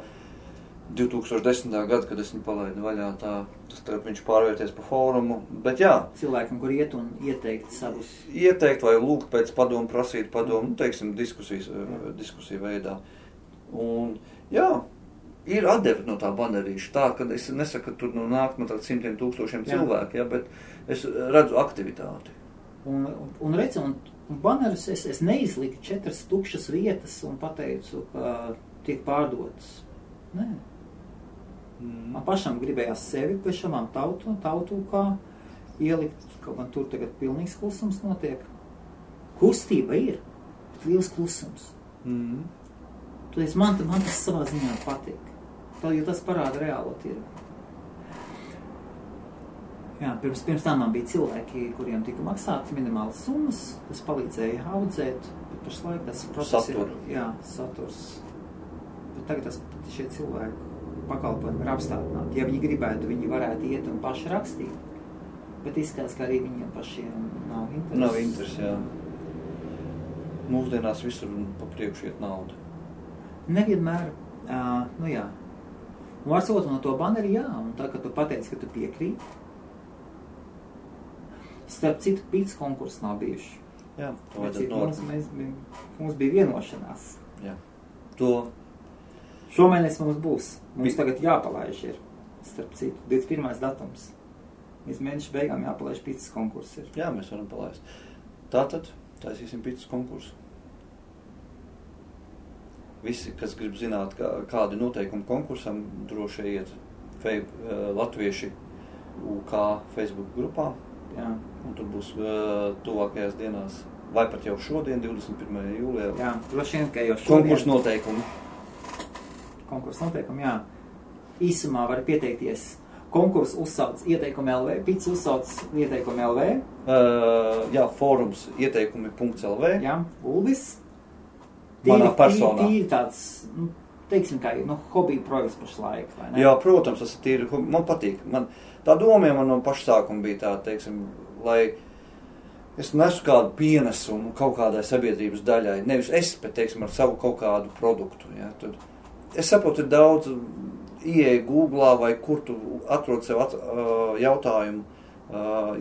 2010. Gada, kad es viņu palaidu vaļā, tas tagad viņš pārvērties pa fórumu, bet jā. Cilvēkam, kur iet un ieteikt savus. Ieteikt vai lūgt pēc padomu, prasīt padomu, teiksim, diskusiju veidā. Un jā, ir atdeve no tā banerīša, tā, kad es nesaku, ka tur nāk no tāda 100,000 cilvēku, ja, bet es redzu aktivitāti. Un redzi, un banerus es neizliku 4 tukšas vietas un pateicu, ka tiek pārdotas. Nē. Man pašam gribējās sevi pēc šamām tautu kā ielikt, kaut man tur tagad pilnīgs klusums notiek. Kustība ir, bet liels klusums. Tad man tas savā ziņā patīk. Jo tas parāda reālo tirgu. Jā, pirms tam man bija cilvēki, kuriem tika maksāti minimālas summas, tas palīdzēja audzēt, bet pašlaik tas process ir, saturs. Bet tagad šie cilvēki pakalpojumi ir apstādināti. Ja viņi gribētu, viņi varētu iet un paši rakstīt. Bet izskatās, ka arī viņiem pašiem nav interesi. Nav interesi, jā. Mūsdienās visur pa priekšu iet nauda. Nevienmēr, jā. Un var sakot no to baneri, jā, un tā, ka tu pateici, ka tu piekrīt. Starp citu, pīts konkurss nav bijuši. Jā, to vajadzētu mums bija vienošanās. Jā. Šomēnes mums būs. Mums tagad jāpalaiž ir, starp citu, 21. datums. Līdz mēneša beigām jāpalaiž pīcis konkurss ir. Jā, mēs varam palaist. Tātad taisīsim pīcis konkursu. Visi, kas grib zināt, kādi noteikumi konkursam, droši iet Latvieši UK Facebook grupā. Jā. Un tur būs tuvākajās dienās, vai pat jau šodien, 21. jūlijā. Jā, droši vien, ka jau šodien. Konkursu noteikumi. Konkursu noteikumi, jā. Īsumā var pieteikties. Konkursu uzsauc ieteikumi LV, pīcis uzsauc ieteikumi LV. Jā, fórums ieteikumi.lv. Jā, Uldis. Manā personā. Tīri tāds, teiksim, kā hobija projekts pašlaik, vai ne? Jā, protams, tas ir tīri, man patīk. Tā doma man no paša sākuma bija tā, teiksim, lai es nesu kādu pienesumu kaut kādai sabiedrības daļai. Nevis es, bet, teiksim, ar savu kaut kādu produktu. Ja? Tad es saprotu, ir daudz ieeja Googlā vai kur tu atrod sev jautājumu,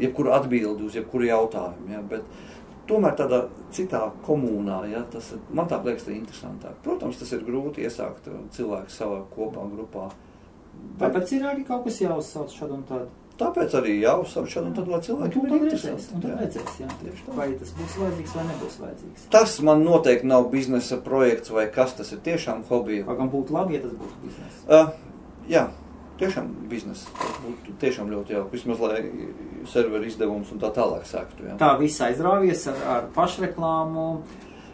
jebkuru atbildi uz jebkuru jautājumu. Ja? Bet tomēr tādā citā komunā, ja? Tas man tā liekas interesantāk. Protams, tas ir grūti iesākt cilvēku savā kopā grupā. Tāpēc ir arī kaut kas jāuzsauc šādu un tādu. Tāpēc arī jāuzsauc šādu un tādu, lai cilvēkiem ir interesanti. Un tad redzēs, jā. Vai tas būs vajadzīgs vai nebūs vajadzīgs. Tas man noteikti nav biznesa projekts vai kas, tas ir tiešām hobija. Vai gan būtu labi, ja tas būtu biznesa? Jā, tiešām biznesa. Tas būtu tiešām ļoti jauki. Vismaz, lai serveri izdevums un tā tālāk sāktu. Jā. Tā viss aizrāvies ar pašreklāmu.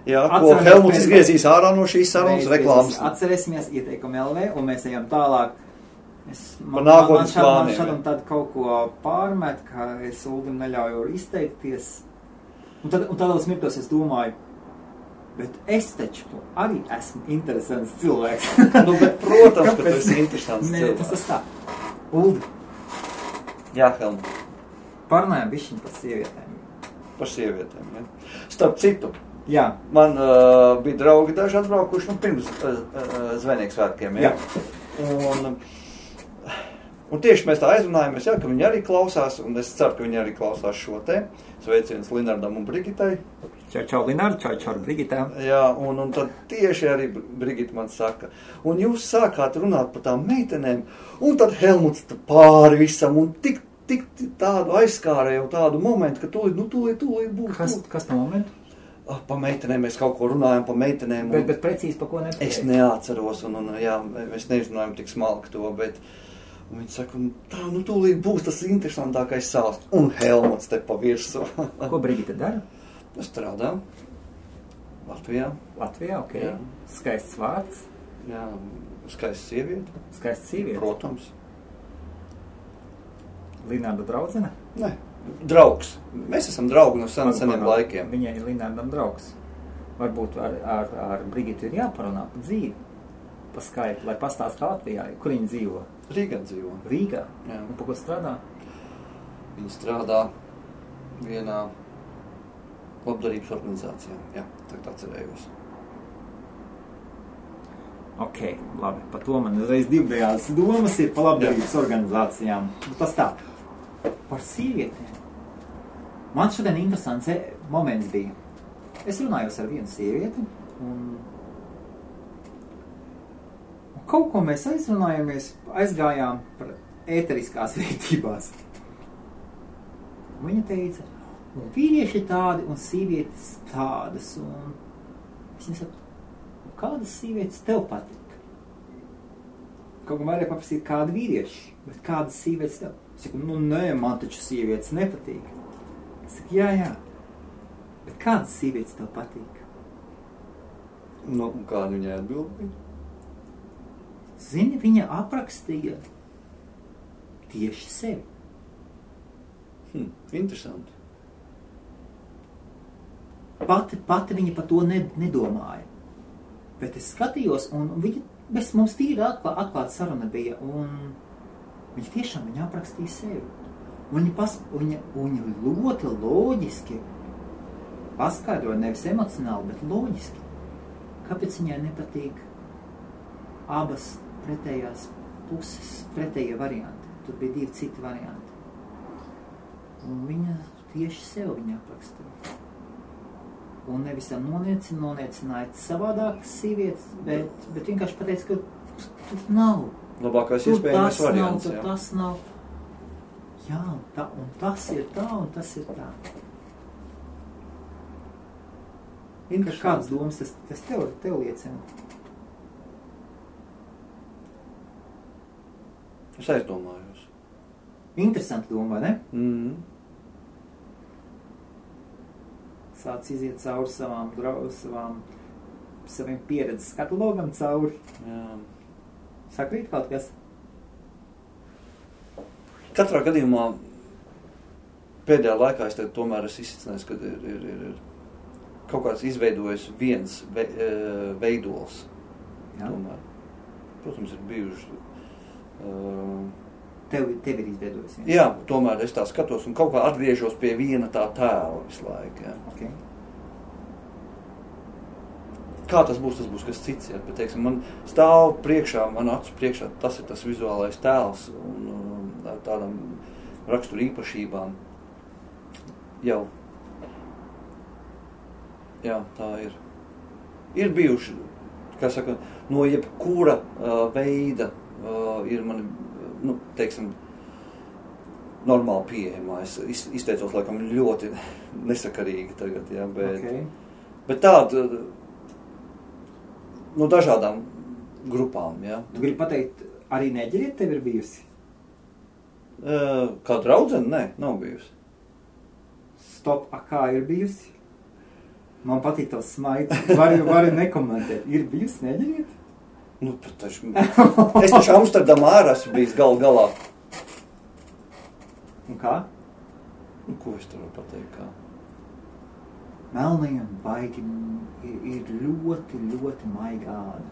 Jā, ko Helmuts izgriezīs ārā no šīs sarunas reklāmas. Atcerēsimies ieteikumu LV un mēs ejam tālāk. Man šad un tad kaut ko pārmet, ka es Uldim neļauju izteikties. Un tādos mirkļos es domāju, bet es taču arī esmu interesants cilvēks. Bet, protams, ka tu esi interesants cilvēks. Tas tā. Uldi. Jā, Helmut. Parunājam bišķiņ par sievietēm. Par sievietēm, jā. Starp citu. Jā. Man bija draugi daži atbraukuši pirms Zvejnieku svētkiem, jā. Un tieši mēs tā aizrunājamies, jā, ka viņi arī klausās, un es ceru, ka viņi arī klausās šo te. Sveiciens Linardam un Brigitai. Čau, Linard, čau, Brigitā. Jā, un tad tieši arī Brigita man saka, un jūs sākāt runāt par tām meitenēm, un tad Helmuts pāri visam, un tik tādu aizskārēju tādu momentu, ka tūlīt būs. Kas tā momentu? Pa meitenēm mēs kaut ko runājam, pa meitenēm. Bet precīzi pa ko nepateikt? Es neatceros, un jā, mēs neizrunājam tik smalki to, bet un viņi saka, tā, tūlīt būs tas interesantākais sāsts. Un Helmuts te pa virsu. Ko Brigita dara? Strādā. Latvijā. Latvijā, ok. Jā. Skaists vārds. Jā, skaists sieviete. Skaists sieviete? Protams. Linārda draudzene? Ne, draugs. Mēs esam draugi no seniem laikiem. Viņai ir Linārdam draugs. Varbūt ar Brigitu ir jāparunā pa dzīvi. Pa Skype, lai pastāst Latvijā, kur viņi dzīvo. Rīgā dzīvo. Rīgā? Jā. Un pa ko strādā? Viņi strādā vienā labdarības organizācijā. Jā, tagad atcerējos. Ok, labi. Pa to man uzreiz divējās domas ir pa labdarības organizācijām. Tas tā. Par sievietēm. Man šodien interesants moments bija. Es runājos ar vienu sievieti un kaut ko mēs aizgājām par ēteriskās vērtībās. Viņa teica, un vīrieši tādi un sievietes tādas, un es nesaku, kādas sievietes tev patīk? Kaut kā vairāk paprasīt, kādi vīrieši, bet kādas sievietes tev? Es saku, nē, man taču sievietes nepatīk. Es saku, jā, bet kādas sievietes tev patīk? Un kāda viņai atbildīja? Zini, viņa aprakstīja tieši sevi. Interesanti. Pati viņa par to nedomāja. Bet es skatījos, un mums tīri atklāta saruna bija, un viņa tiešām aprakstīja sevi. Viņa ļoti loģiski paskaidroja, nevis emocionāli, bet loģiski. Kāpēc viņai nepatīk abas pretējās puses, pretējie varianti. Tur bija 2 citi varianti. Un viņa tieši sev aprakstīja. Un nevis noniecināja savādākas sievietes, bet vienkārši pateica, ka tur nav. Labākais iespējamais variants. Tas nav. Jā, un tas ir tā, un tas ir tā. Kādas domas tas tev liecina? Es aizdomājos. Interesanti doma, vai ne? Mm. Sāc iziet cauri saviem pieredzes katalogam cauri. Jā. Sakrīt kaut kas? Katrā gadījumā pēdējā laikā es tomēr esmu izsacinājies, ka ir kaut kāds izveidojis viens veidols. Tomēr. Protams, ir bijuši. Tev ir izveidojis? Jā, tomēr es tā skatos un kaut kā atgriežos pie viena tā tēla visu laiku. Jā. Okay. Kā tas būs kas cits. Jā, bet, teiksim, man stāv priekšā, man acu priekšā, tas ir tas vizuālais tēls un tādām raksturu īpašībām. Jau. Jā, tā ir. Ir bijuši, kā saka, no jebkura veida ir mani, teiksim, normāli pieejamā. Es izteicos, laikam, ļoti nesakarīgi tagad, jā, bet tāda no dažādām grupām, jā. Tu gribi pateikt, arī neģeriet tev ir bijusi? Kā draudzene? Nē, nav bijusi. Stop, kā ir bijusi? Man patīk tavs smaids. Vari nekomentēt. Ir bijusi, neģeriet? Es taču Amsterdamā ārā esmu bijis galā. Un kā? Ko es tur varu pateikt, kā? Melnajam baigi ir ļoti, ļoti maigāda.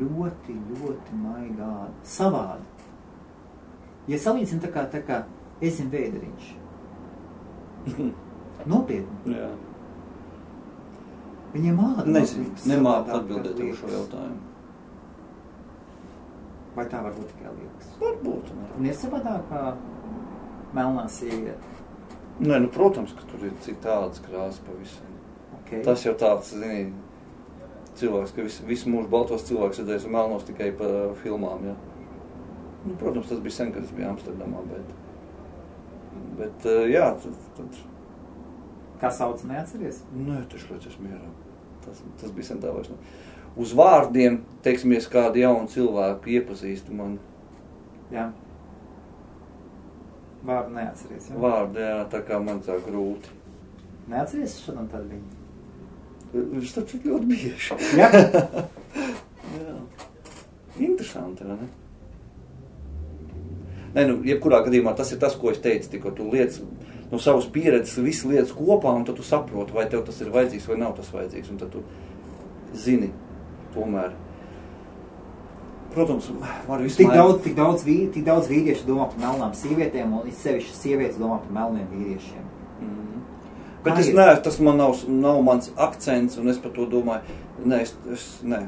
Ļoti, ļoti maigāda. Savāda. Ja salīdzina tā kā esim vēderiņš. Nopietni. Jā. Viņiem nemāku atbildēt uz šo jautājumu. Vai tā var būt tikai liekas? Varbūt. Un ir savādāk kā melnā sieviete? Nē, protams, ka tur ir citādas krāsas pavisam. Okay. Tas jau tāds, zini, cilvēks, ka visu mūžu baltos cilvēks redzējis un melnos tikai pa filmām, jā. Protams, tas bija sen, kad es biju Amsterdamā, bet jā, tad... Kā sauc, neatceries? Nē, taču līdz es mierā. Tas bija sen tā vairs. Uz vārdiem, teiksimies, kādu jaunu cilvēku iepazīstu man. Jā. Vārdu neatceries, jā? Vārdu, jā, tā kā man tā grūti. Neatceries šodien tad viņa? Viņš taču ļoti bieži. Jā? Jā. Interesanti, vai ne? Nē, jebkurā gadījumā tas ir tas, ko es teicu, tikko tu lietas no savas pieredzes, visas lietas kopā, un tad tu saproti, vai tev tas ir vajadzīgs vai nav tas vajadzīgs, un tad tu zini tomēr. Protams, var visu Tik daudz vīriešu domā par melnām sievietēm, un sevišķi sievietes domā par melniem vīriešiem. Bet tas man nav mans akcents, un es par to domāju. Nē,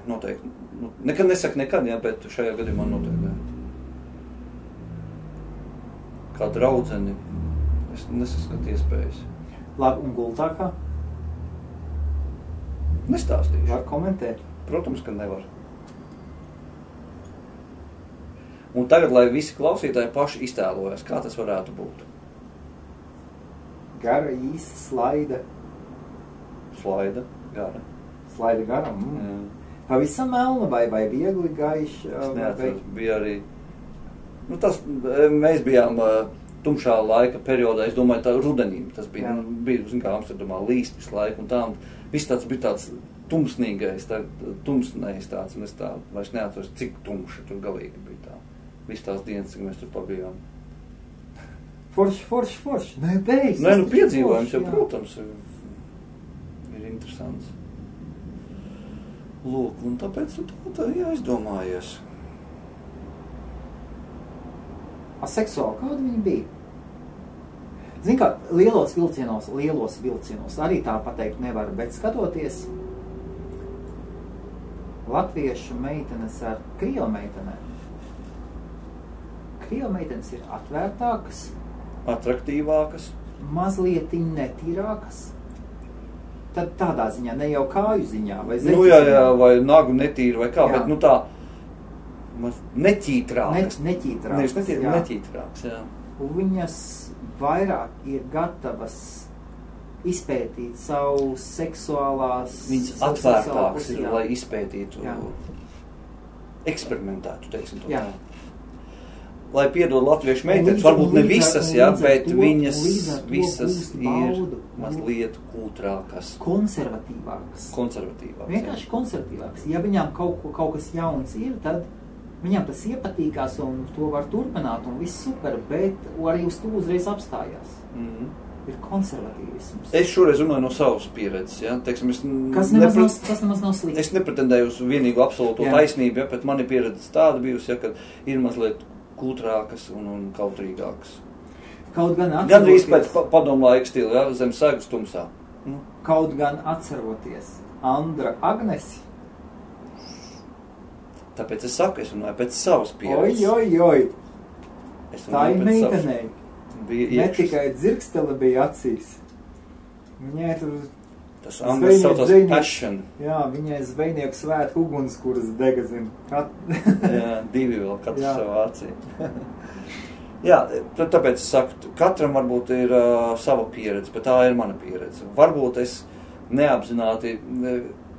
noteikti. Nekad nesaku nekad, jā, bet šajā gadījumā noteikti. Kā draudzeni, es nesaskatu iespējas. Labi, un gultākā? Nestāstīšu. Var komentēt? Protams, ka nevar. Un tagad, lai visi klausītāji paši iztēlojas, kā tas varētu būt. Gara, īsa, slaida. Slaida, gara. Slaida gara, Pavisam melna vai viegli gaiša? Es neatceros, bija arī... Mēs bijām tumšā laika periodā, es domāju, tā rudenī. Tas bija kā Amsterdamā līst visu laiku un tā. Viss tāds bija tāds tumsnīgais, tumsnējs tāds, un es tā vairs neatceros, cik tumša tur galīgi bija tā. Viss tās dienas, cik mēs tur pabijām. Forši. Nē, beidz. Nē, piedzīvojums jau, protams, ir interesants. Lūk, un tāpēc tā jāizdomājies. Seksuāli, kāda viņa bija? Zini kā, lielos vilcienos arī tā pateikt nevar, bet skatoties latviešu meitenes ar krievu meitenēm. Krievu meitenes ir atvērtākas, atraktīvākas, mazliet netīrākas. Tad tādā ziņā, ne jau kāju ziņā, vai zeķu jā, ziņā. vai nagu netīra, vai kā, bet tā neķītrākas. Neķītrākas, neķītrākas, jā. viņas vairāk ir gatavas izpētīt savu seksuālās... Viņas atvērtāks ir, lai izpētītu, eksperimentētu, teiksim to. Jā. Lai piedod latviešu meitenes, varbūt ne visas, bet viņas visas ir mazliet kūtrākas. Konservatīvākas. Vienkārši konservatīvākas. Ja viņām kaut kas jauns ir, tad viņām tas iepatīkās un to var turpināt un viss super, bet arī uz to uzreiz apstājās. Ir konservatīvisms. Es šoreiz runāju no savas pieredzes, ja? Teiksim, kas nemaz nav slikti. Es nepretendēju uz vienīgu absolūto taisnību, bet mani pieredze tāda bijusi, ja, ka ir mazliet kūtrākas un kautrīgākas. Kaut gan atceroties... Gandrīz pēc padomu laika stila, ja? Zem segas tumsā. Kaut gan atceroties Andra Agnesi. Tāpēc es saku, es runāju pēc savas pieredzes. Oi. Tā ir meitenei. Ne tikai dzirkstele bija acīs. Viņai tur... Tas angļu saucās passion. Jā, viņai zvejnieku svētku ugunskuras dega, zin. Jā, divi vēl, katrs savā acī. Jā, tāpēc es saku, katram varbūt ir sava pieredze, bet tā ir mana pieredze. Varbūt es neapzināti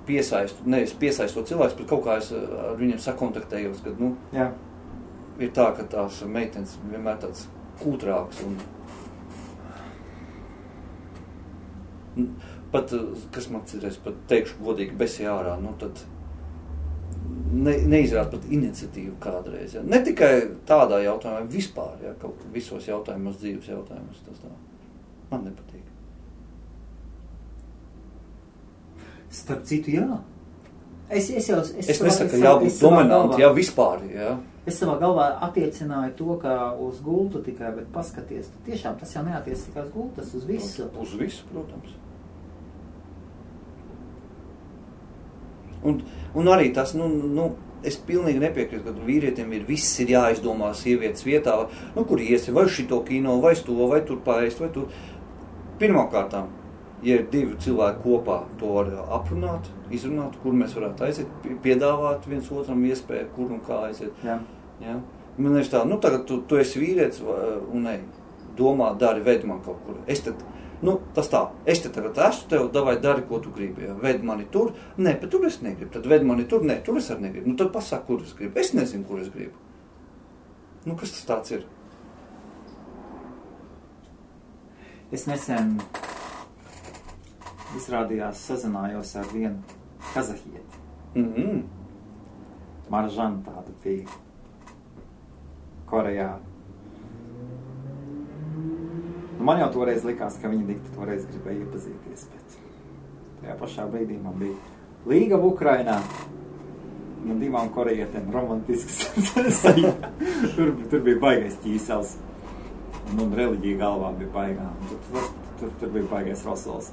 piesaistu cilvēks, bet kaut kā es ar viņiem sakontaktējos, kad, ir tā, ka tās meitenes vienmēr tāds kūtrāks un pat, kas man citreiz, pat teikšu godīgi besi ārā, tad neizrāda pat iniciatīvu kādreiz. Ja. Ne tikai tādā jautājumā, vispār, ja, kaut visos jautājumos, dzīves jautājumos, tas tā. Man nepatīk. Starp citu, jā. Es nesaku, ka jābūt dominanti, jā, vispār, jā. Es savā galvā attiecināju to, ka uz gultu tikai, bet paskaties, tiešām tas jau neatiec tikai uz gultu, tas uz visu. Uz visu, protams. Un arī tas, es pilnīgi nepiekrītu, ka vīrietiem viss ir jāizdomā sievietes vietā, kur iesi, vai šito kino, vai to, vai tur paēst, vai tur. Pirmkārtām, ja ir divi cilvēki kopā, to var aprunāt, izrunāt, kur mēs varētu aiziet, piedāvāt viens otram iespēju, kur un kā aiziet. Jā. Ja? Man ir tā, tagad tu esi vīrietis un domā, dari, veid man kaut kur. Es te tagad esmu tev, davai dari, ko tu gribi. Ja? Veid mani tur, bet tur es negribu. Tad veid mani tur, tur es arī negribu. Tad pasaka, kur es gribu. Es nezinu, kur es gribu. Kas tas tāds ir? Es nesen izrādījās sazinājos ar vienu kazahieti. Maržana tāda bija Korejā. Man jau toreiz likās, ka viņi toreiz gribēja iepazīties, bet tajā pašā brīdī man bija līgava Ukrainā. Man divām korejietēm romantisks sajūta. Tur bija baigais ķīsels. Un reliģija galvā bija baigā. Tur bija baigais rosols.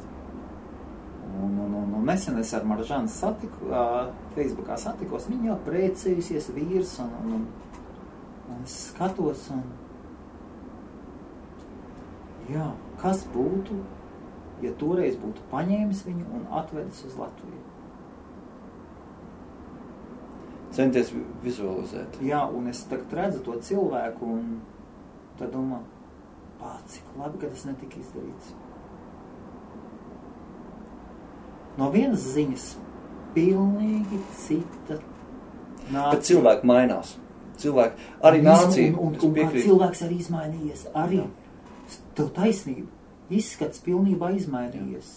Un nesen es ar Maržanu Facebookā satikos. Viņa jau precējusies vīrs un es skatos un jā, kas būtu, ja toreiz būtu paņēmis viņu un atvedis uz Latviju? Centies vizualizēt. Jā, un es tagad redzu to cilvēku un tad domā, cik labi, ka tas netika izdarīts. No vienas ziņas pilnīgi cita nācija. Bet cilvēki mainās. Cilvēki, arī nācija. Un kā cilvēks arī izmainījies. Arī tev taisnība. Izskats pilnībā izmainījies.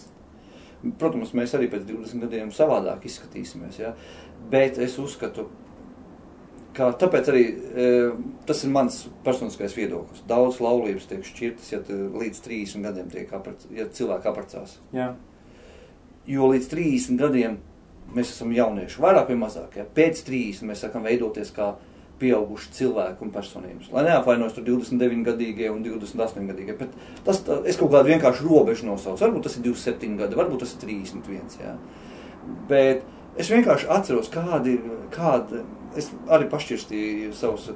Protams, mēs arī pēc 20 gadiem savādāk izskatīsimies. Ja? Bet es uzskatu, ka tāpēc arī tas ir mans personiskais viedoklis. Daudz laulības tiek šķirtas, ja līdz 30 gadiem ja cilvēki apprecās. Jā. Jo līdz 30 gadiem mēs esam jaunieši, vairāk vai mazāk. Ja? Pēc 30 mēs sākam veidoties kā pieauguši cilvēki un personības. Lai neapvainojas tur 29-gadīgie un 28-gadīgie, bet es kaut kādu vienkārši robežu nosaucu. Varbūt tas ir 27 gadi, varbūt tas ir 31, jā. Bet es vienkārši atceros, kādi es arī pašķirstīju savus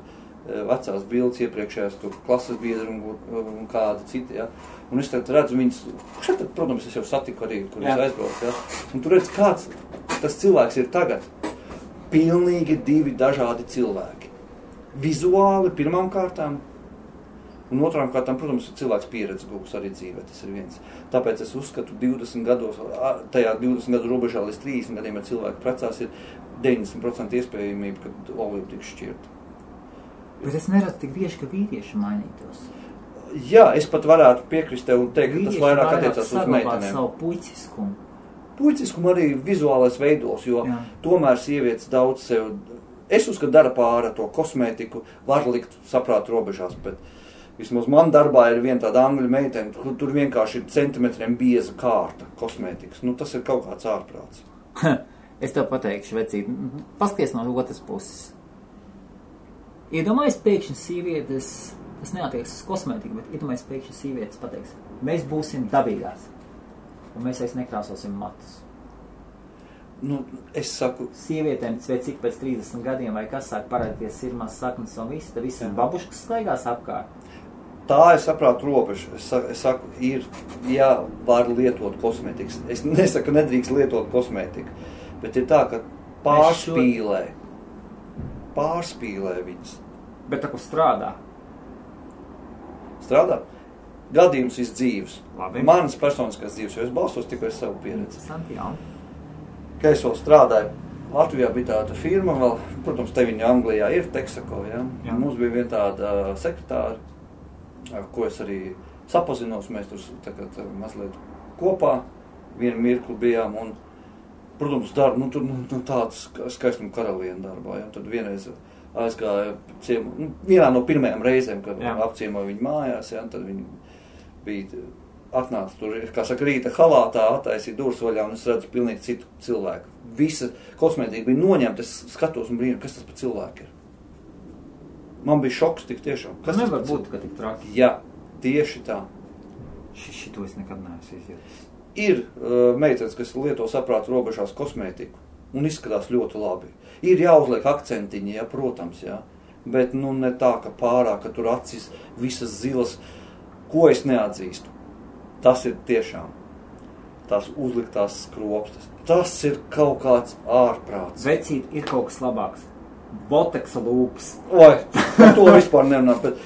vecās bildes iepriekšējās tur klases biedri un kādi citi, jā. Un es tad redzu viņus, šeit, protams, es jau satiku arī, kur es aizbraucu, jā. Un tu redz, kāds tas cilvēks ir tagad. Pilnīgi divi dažādi cilvēki. Vizuāli pirmām kārtām Un otrām kārtām, protams, cilvēks pieredze gūs arī dzīvē, tas ir viens. Tāpēc es uzskatu 20 gados, tajā 20 gadu robežā līdz 30 gadiem, ja cilvēki precās, ir 90% iespējamība, ka olība tiks šķirta. Bet es neredzu tik bieži, ka vīrieši mainītos. Jā, es pat varētu piekrist tev un teikt, ka tas vairāk attiecās uz meitenēm. Savu puiciskumu. Puiciskumu arī vizuālais veidos, jo tomēr sievietes daudz sev, es uzskatu, dara pāri to kosmētiku, var likt saprāt robežās, bet vismaz man darbā ir viena tāda angļu meitene, tur vienkārši ir centimetriem bieza kārta kosmētikas. Nu, tas ir kaut kāds ārprāts. Es tev pateikšu, vecīt, paskaties no otras puses. Iedomājies pēkšņi sievietes, tas neatieks uz kosmētiku, bet iedomājies pēkšņi sievietes pateiks, mēs būsim dabīgās, un mēs vairs nekrāsosim matus. Nu, es saku... Sievietēm, cik pēc 30 gadiem vai kas sāk parādīties sirmās saknes un viss, tad visiem babuškas staigās apkārt. Tā es saprātu robežu. Es saku, ir, jā, var lietot kosmētikas. Es nesaku, nedrīkst lietot kosmētiku, bet ir tā, ka pārspīlē viņas. Bet tā, ko strādā? Strādā? Gadījums ir dzīves. Labi. Manas personiskās dzīves, jo es balstos tikai savu pieredzi. Santiāli. Ka es vēl strādāju, Latvijā bija tāda firma vēl, protams, te viņa Anglijā ir, Texaco, ja? Mums bija viena tāda sekretāra, ar ko es arī sapazinos, mēs tur tagad mazliet kopā, vienu mirkli bijām, un, protams, darba, tāds skaistuma karaliena darbā, ja? Tad vienreiz aizgāja vienā no pirmajām reizēm, kad apciemoja viņu mājās, ja? Tad viņi bija... Atnāca tur, kā saka, rīta halātā, attaisīja durvis vaļā, un es redzu pilnīgi citu cilvēku. Visa kosmētika bija noņemta, es skatos un brīnu, kas tas par cilvēku ir. Man bija šoks tik tiešām. Kas nevar būt, ka tik traki? Jā, tieši tā. Šito es nekad neesmu izjūtis. Ir meitenes, kas lieto saprātu robežās kosmētiku, un izskatās ļoti labi. Ir jāuzliek akcentiņi, ja, protams, jā. Bet, ne tā, ka pārāk, ka tur acis visas zilas, ko es neatzīstu. Tas ir tiešām tās uzliktās skropstas. Tas ir kaut kāds ārprāts. Vecīt, ir kaut kas labāks. Boteksa lūpas. Oi, par to vispār nerunā, bet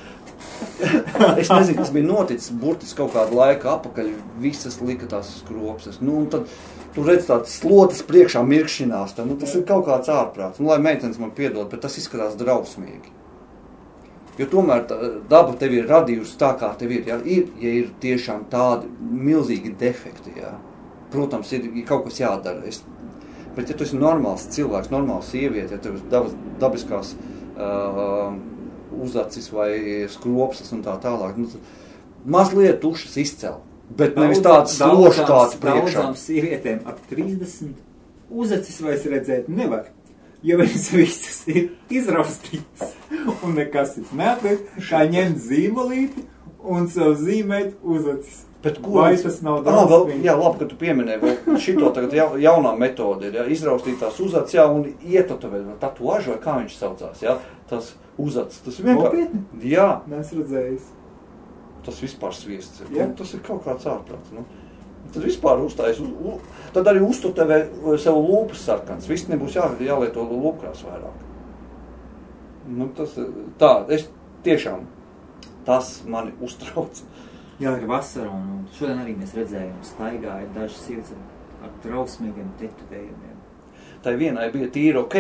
es nezinu, kas bija noticis burtiski kaut kādu laiku apakaļ, visas lika tās skropstas. Un tad tu redz tādas slotas priekšā mirkšķinās, tas ir kaut kāds ārprāts. Lai meitenes man piedod, bet tas izskatās drausmīgi. Jo tomēr daba tev ir radījusi tā, kā tev ir. Ja ir tiešām tādi milzīgi defekti, ja. Protams, ir kaut kas jādara. Bet ja tu esi normāls cilvēks, normāls sieviete, ja tev ir dabiskās uzacis vai skropstas un tā tālāk, mazliet tušas izcel. Bet nevis tāds sloškāts priekšā. Daudzām sievietēm ap 30 uzacis vairs redzēt nevar. Jo viņas visas ir izraustītas un nekas ir neatliek, kā ņemt zīmolīti un sev zīmēt uzacis. Bet ko? Vai tas nav daudz? Jā, labi, ka tu pieminēji, šito tagad jaunā metode ir, ja, izraustītās uzacis, jā, un ietotovēt, tatuāžu, vai kā viņš saucās, jā, tas uzacis, tas vienkārši... Nopietni? Jā. Nes redzējis. Tas vispār sviests ir, jā. Tas ir kaut kāds ārprāts, Tad vispār uzstājas, tad arī uztutevē sev lūpas sarkans. Viss nebūs jālieto lūpkrās vairāk. Tas tā, es tiešām, tas mani uztrauc. Jā, ir vasara, un šodien arī mēs redzējām, staigāja dažas sievietes ar trausmīgiem tetovējumiem. Tai vienai bija tīri ok,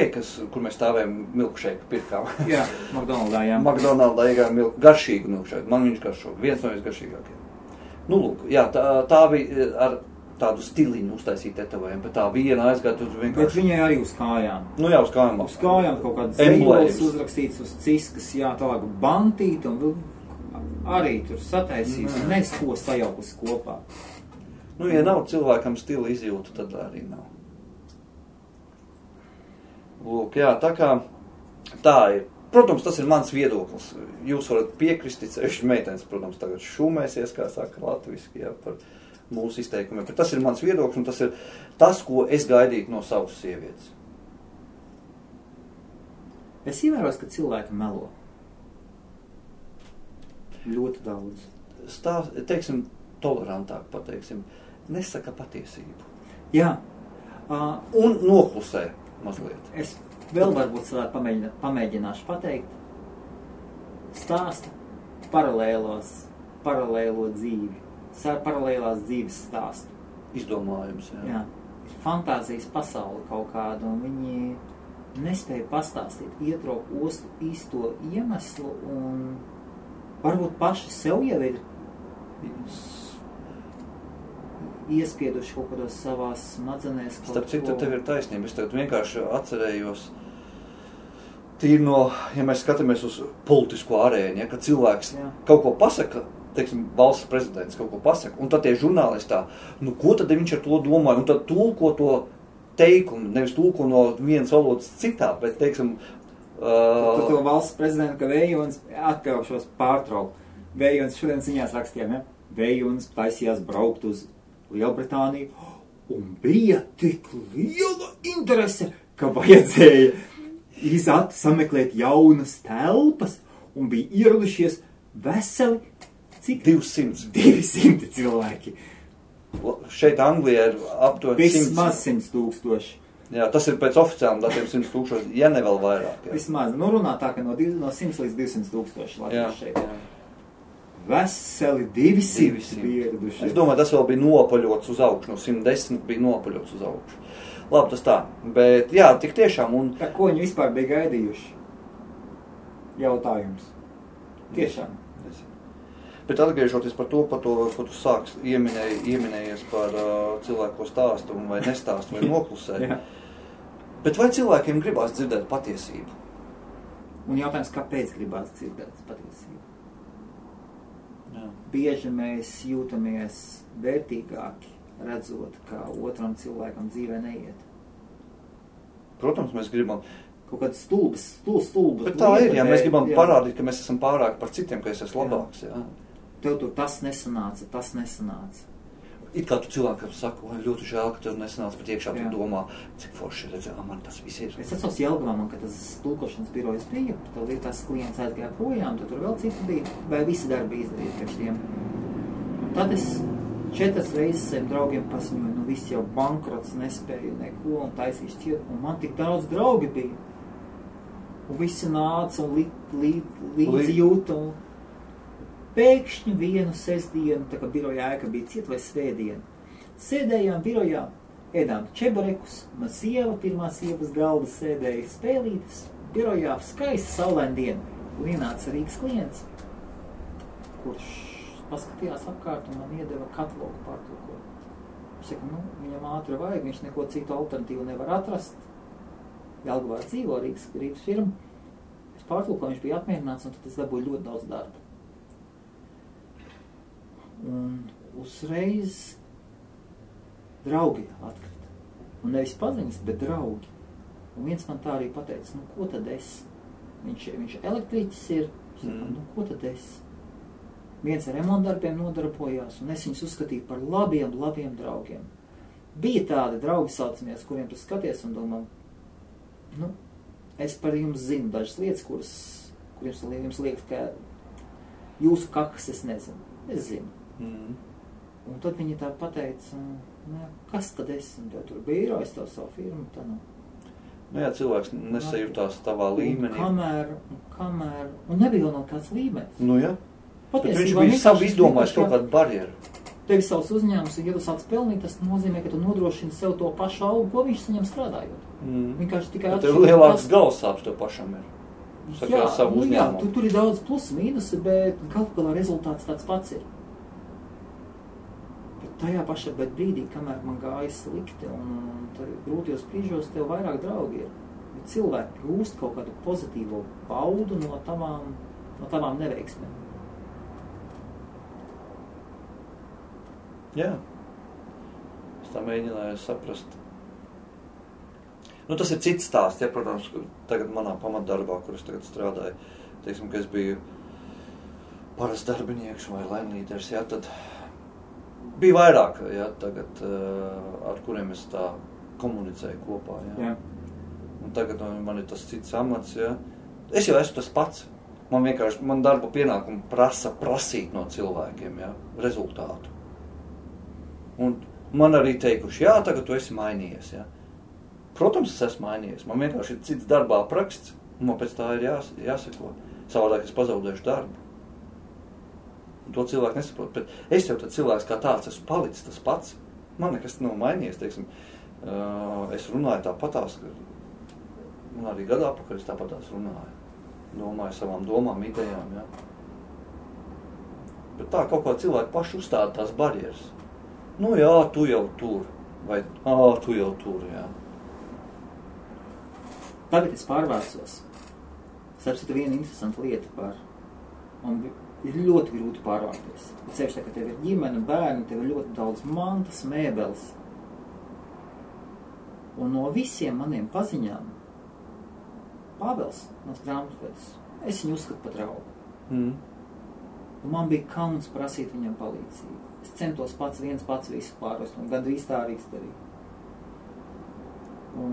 kur mēs stāvējām milkšeiku pirkām. Jā, McDonaldā, jā. McDonaldā iegājām garšīgu milkšeiku. Man viņš garšo, viens no visgaršīgākiem. Lūk, jā, tā bija ar tādu stiliņu uztaisīt tetovējumu, bet tā viena aizgāja tur vienkārši... Bet viņai arī uz kājām. Jā, uz kājām. Uz kājām kaut kāds zīmols uzrakstīts uz ciskas, jā, tālāk bantīt un arī tur sataisīs, nes ko sajaukus kopā. Ja nav cilvēkam stila izjūta, tad arī nav. Lūk, jā, tā kā tā ir. Protams, tas ir mans viedoklis. Jūs varat piekrist, sevišķi meitenes, protams, tagad šūmēsies, kā saka latviski, jā, par mūsu izteikumiem. Bet tas ir mans viedoklis, un tas ir tas, ko es gaidītu no savas sievietes. Es ievēros, ka cilvēki melo. Ļoti daudz. Teiksim, tolerantāk pateiksim, nesaka patiesību. Jā. Un noklusē mazliet. Es vēl varbūt pamēģināšu pateikt. Stāsta, paralēlo dzīvi, paralēlās dzīves stāstu. Izdomājums, Jā. Ir fantāzijas pasaule kaut kāda, un viņi nespēja pastāstīt, ietraukt īsto iemeslu, un varbūt paši sev jau ir iespieduši kaut kādos savās smadzenēs. Starp citu, tev ir taisnība. Es tagad vienkārši atcerējos, tīri no, ja mēs skatāmies uz politisko arēņu, ja, kad cilvēks kaut ko pasaka, teiksim, valsts prezidents kaut ko pasaka, un tad tie žurnālistā, nu ko tad viņš ar to domāja, un tad tulko to teikumu, nevis tulko no vienas valodas citā, bet, teiksim... To valsts prezidentu, ka Vējons, atļaušos pārtraukt, Vējons šodien ziņās rakstījām, ja? Vējons taisījās braukt uz Lielbritāniju, un bija tik liela interese, ka vajadzēja sameklēt jaunas telpas, un bija ieradušies veseli, cik? 200 cilvēki. Šeit Anglijā ir aptuveni vismaz 100 000. Jā, tas ir pēc oficiāliem datiem 100 000, ja ne vēl vairāk. Jā. Vismaz, nu runā tā, ka no 100 līdz 200 000 Latvijas šeit. Jā. Veseli 200 pieraduši. Es domāju, tas vēl bija nopaļots uz augšu, no 110 bija nopaļots uz augšu. Labi, tas tā, bet jā, tik tiešām un... Tā ko viņi vispār bija gaidījuši? Jautājums. Tiešām. Bet atgriežoties par to, ko tu sāks ieminējies par cilvēku stāstu vai nestāstu vai noklusē. Bet vai cilvēkiem gribās dzirdēt patiesību? Un jautājums, kāpēc gribās dzirdēt patiesību? Jā. Bieži mēs jūtamies vērtīgāki, redzot, kā otram cilvēkam dzīvē neiet. Protams, mēs gribam... Kaut kāds stulbas. Bet tā ir, ja mēs gribam parādīt, ka mēs esam pārāk par citiem, ka es esmu labāks, jā. Tev tur tas nesanāca. It kā tu cilvēkam saka, vai ļoti žēl, ka tev nesanāca, bet iekšā tu domā, cik forši redzē, man tas viss ir. Es atceros Jelgavā, man, kad tas tulkošanas birojas bija, tad tās klients aizgāja projām, tad tur vēl citi bija, vai visi darbi izdarīt priekš tiem. Un tad es 4 reizes saviem draugiem paziņoju, nu viss jau bankrots, nespēju neko un taisīšu ciet, un man tik daudz draugi bija. Un visi nāca un līdzi jūta, un pēkšņi vienu sestdienu, tā kā birojā ēka bija ciet vai svētdienu, sēdējām birojā, ēdām čeburekus, man sieva, pirmā sievas galda sēdēja spēlītes, birojā skaista saulaina diena, un ienāca Rīgas klients, kurš paskatījās apkārt un man iedeva katalogu pārtulkot. Viņš saka, nu, viņam ātri vajag, viņš neko citu alternatīvu nevar atrast. Jelgavā dzīvo Rīgas firma. Es pārtulkoju, viņš bija apmierināts, un tad es dabūju ļoti daudz darba. Un uzreiz draugi atkrita. Un nevis paziņas, bet draugi. Un viens man tā arī pateica, nu, ko tad es? Viņš elektriķis ir. Viņš saka, nu, ko tad es? Viens ar remontdarbiem nodarbojās, un es viņus uzskatīju par labiem draugiem. Bija tādi draugi saucamies, kuriem tu skaties un domā, nu, es par jums zinu dažas lietas, kuras jums liekas, ka jūsu kakas es nezinu. Es zinu. Un tad viņi tā pateica, nu, kas tad es? Un tev tur bija īrojis to savu firmu, tā nav. Nu jā, cilvēks nesajūtās tavā līmenī. Kamēr, un nebija vēl no kāds līmenis. Nu jā. Patiesībā, viņš bija savu izdomājis kaut kādu barjeru. Tev savs uzņēmums, un ja tu sāc pelnīt, tas nozīmē, ka tu nodrošini sev to pašu algu, ko viņš saņem strādājot. Vienkārši tikai tev lielāks galvasāps tev pašam ir. Jā, savu uzņēmumu. Tur ir daudz plusi, mīnusi, bet galu galā rezultāts tāds pats ir. Bet tajā pašā brīdī, kamēr man gāja slikti, un grūtajos brīžos tev vairāk draugi ir. Bet cilvēki gūst kaut kādu pozitīvo baudu no tavām neveiksmēm. Jā, es tā mēģināju saprast. Nu, tas ir cits stāsts, ja, protams, tagad manā pamatdarbā, kur es tagad strādāju, teiksim, ka es biju parasts darbinieks vai laimlīders, ja, tad bija vairāk, ja, tagad, ar kuriem es tā komunicēju kopā, ja. Jā. Un tagad man ir tas cits amats, ja. Es jau esmu tas pats. Man darba pienākumu prasīt no cilvēkiem, ja, rezultātu. Un man arī teikuši, jā, tagad tu esi mainījies, jā. Protams, es esmu mainījies. Man vienkārši ir cits darbā apraksts, un man pēc tā ir jāseko. Savādāk es pazaudēšu darbu. Un to cilvēku nesaprot. Bet es jau tad cilvēks kā tāds esmu palicis tas pats. Man nekas nav mainījies, teiksim. Es runāju tāpatās, un arī gadā apakaļ es tāpatās runāju. Domāju savām domām, idejām, jā. Bet tā kaut kā cilvēki paši uzstāda tās barjeras. Nu jā, tu jau tur. Vai, tu jau tur, jā. Tagad es pārvērsos. Sapsitu viena interesanta lieta par... Un ir ļoti grūti pārvērties. Cevišķi, ka tev ir ģimene, bērni, tev ir ļoti daudz mantas, mēbeles. Un no visiem maniem paziņām Pāvels, mans grāmatvedis, es viņu uzskatu par draugu. Un man bija kauns prasīt viņam palīdzību. Es centos pats visu pārvest, un gandrīz tā arī izdarīju. Un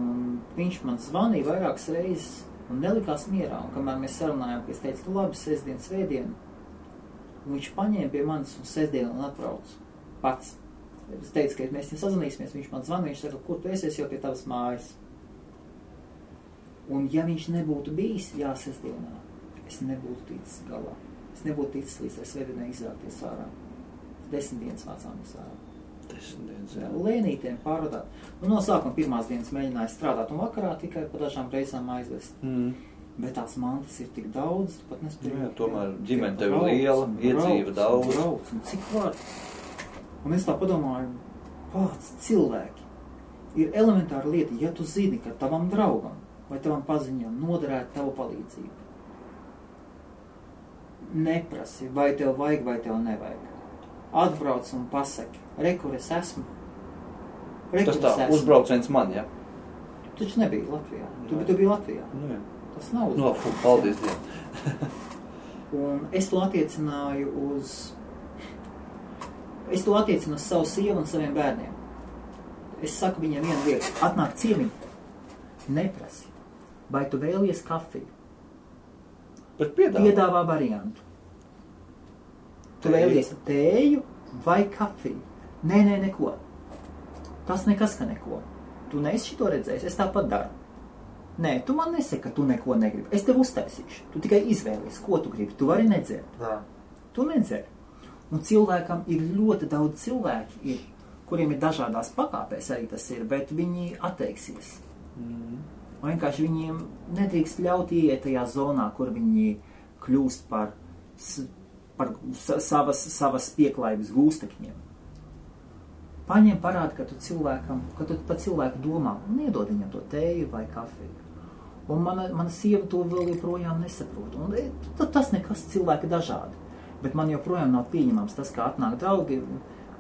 viņš man zvanīja vairākas reizes un nelikās mierā. Un kamēr mēs sarunājām, ka es teicu, labi, sestdien, svētdien, un viņš paņēma pie manis un sestdien un atbrauc pats. Es teicu, ka mēs sazvanīsimies, viņš man zvanīja, viņš saka, kur tu esi jau pie tavas mājas. Un ja viņš nebūtu bijis sestdienā, es nebūtu ticis galā. Es nebūtu ticis līdz tai svētdienai izrākties ārā. 10 dienas vācāmies ārā. 10 dienas, jā. Lēnītiem pārvadāt. Un no sākuma pirmās dienas mēģināju strādāt un vakarā tikai pa dažām reizām aizvest. Bet tās mantas ir tik daudz, tu pat nespēju. Jā, tomēr ģimene tev ir liela, iedzīva daudz. Brauc, un cik var? Un es tā padomāju, kāds cilvēki. Ir elementāra lieta, ja tu zini, ka tavam draugam vai tavam paziņam noderētu tavu palīdzību. Neprasi, vai tev vajag, vai tev nevajag. Atbrauc un pasaki, kur es esmu. Tas tā, uzbrauciens man, ja? Tu taču nebija Latvijā. Tu biji Latvijā. Nu, jā. Tas nav uzbrauciens. Paldies Dievam. Un es to attiecināju uz savu sievu un saviem bērniem. Es saku viņiem vienu lietu. Atnāk ciemiņu. Neprasi. Vai tu vēlies kafiju? Bet piedāvā variantu. Tu vēlies tēju vai kafiju? Nē, neko. Tas nekas, ka neko. Tu neesi šito redzējis, es tāpat daru. Nē, tu man nesaki, ka tu neko negribi. Es tev uztaisīšu. Tu tikai izvēlies, ko tu gribi. Tu vari nedzert. Tu nedzer. Un cilvēkam ir ļoti daudz cilvēki, kuriem ir dažādās pakāpēs arī tas ir, bet viņi atteiksies. Vienkārši viņiem nedrīkst ļaut ieiet tajā zonā, kur viņi kļūst par savas pieklājības gūstekņiem. Paņem parādi, ka tu pa cilvēku domā un iedod viņam to tēju vai kafiju. Un mana sieva to vēl joprojām nesaprot. Un tas nekas cilvēki dažādi. Bet man joprojām nav pieņemams tas, kā atnāk draugi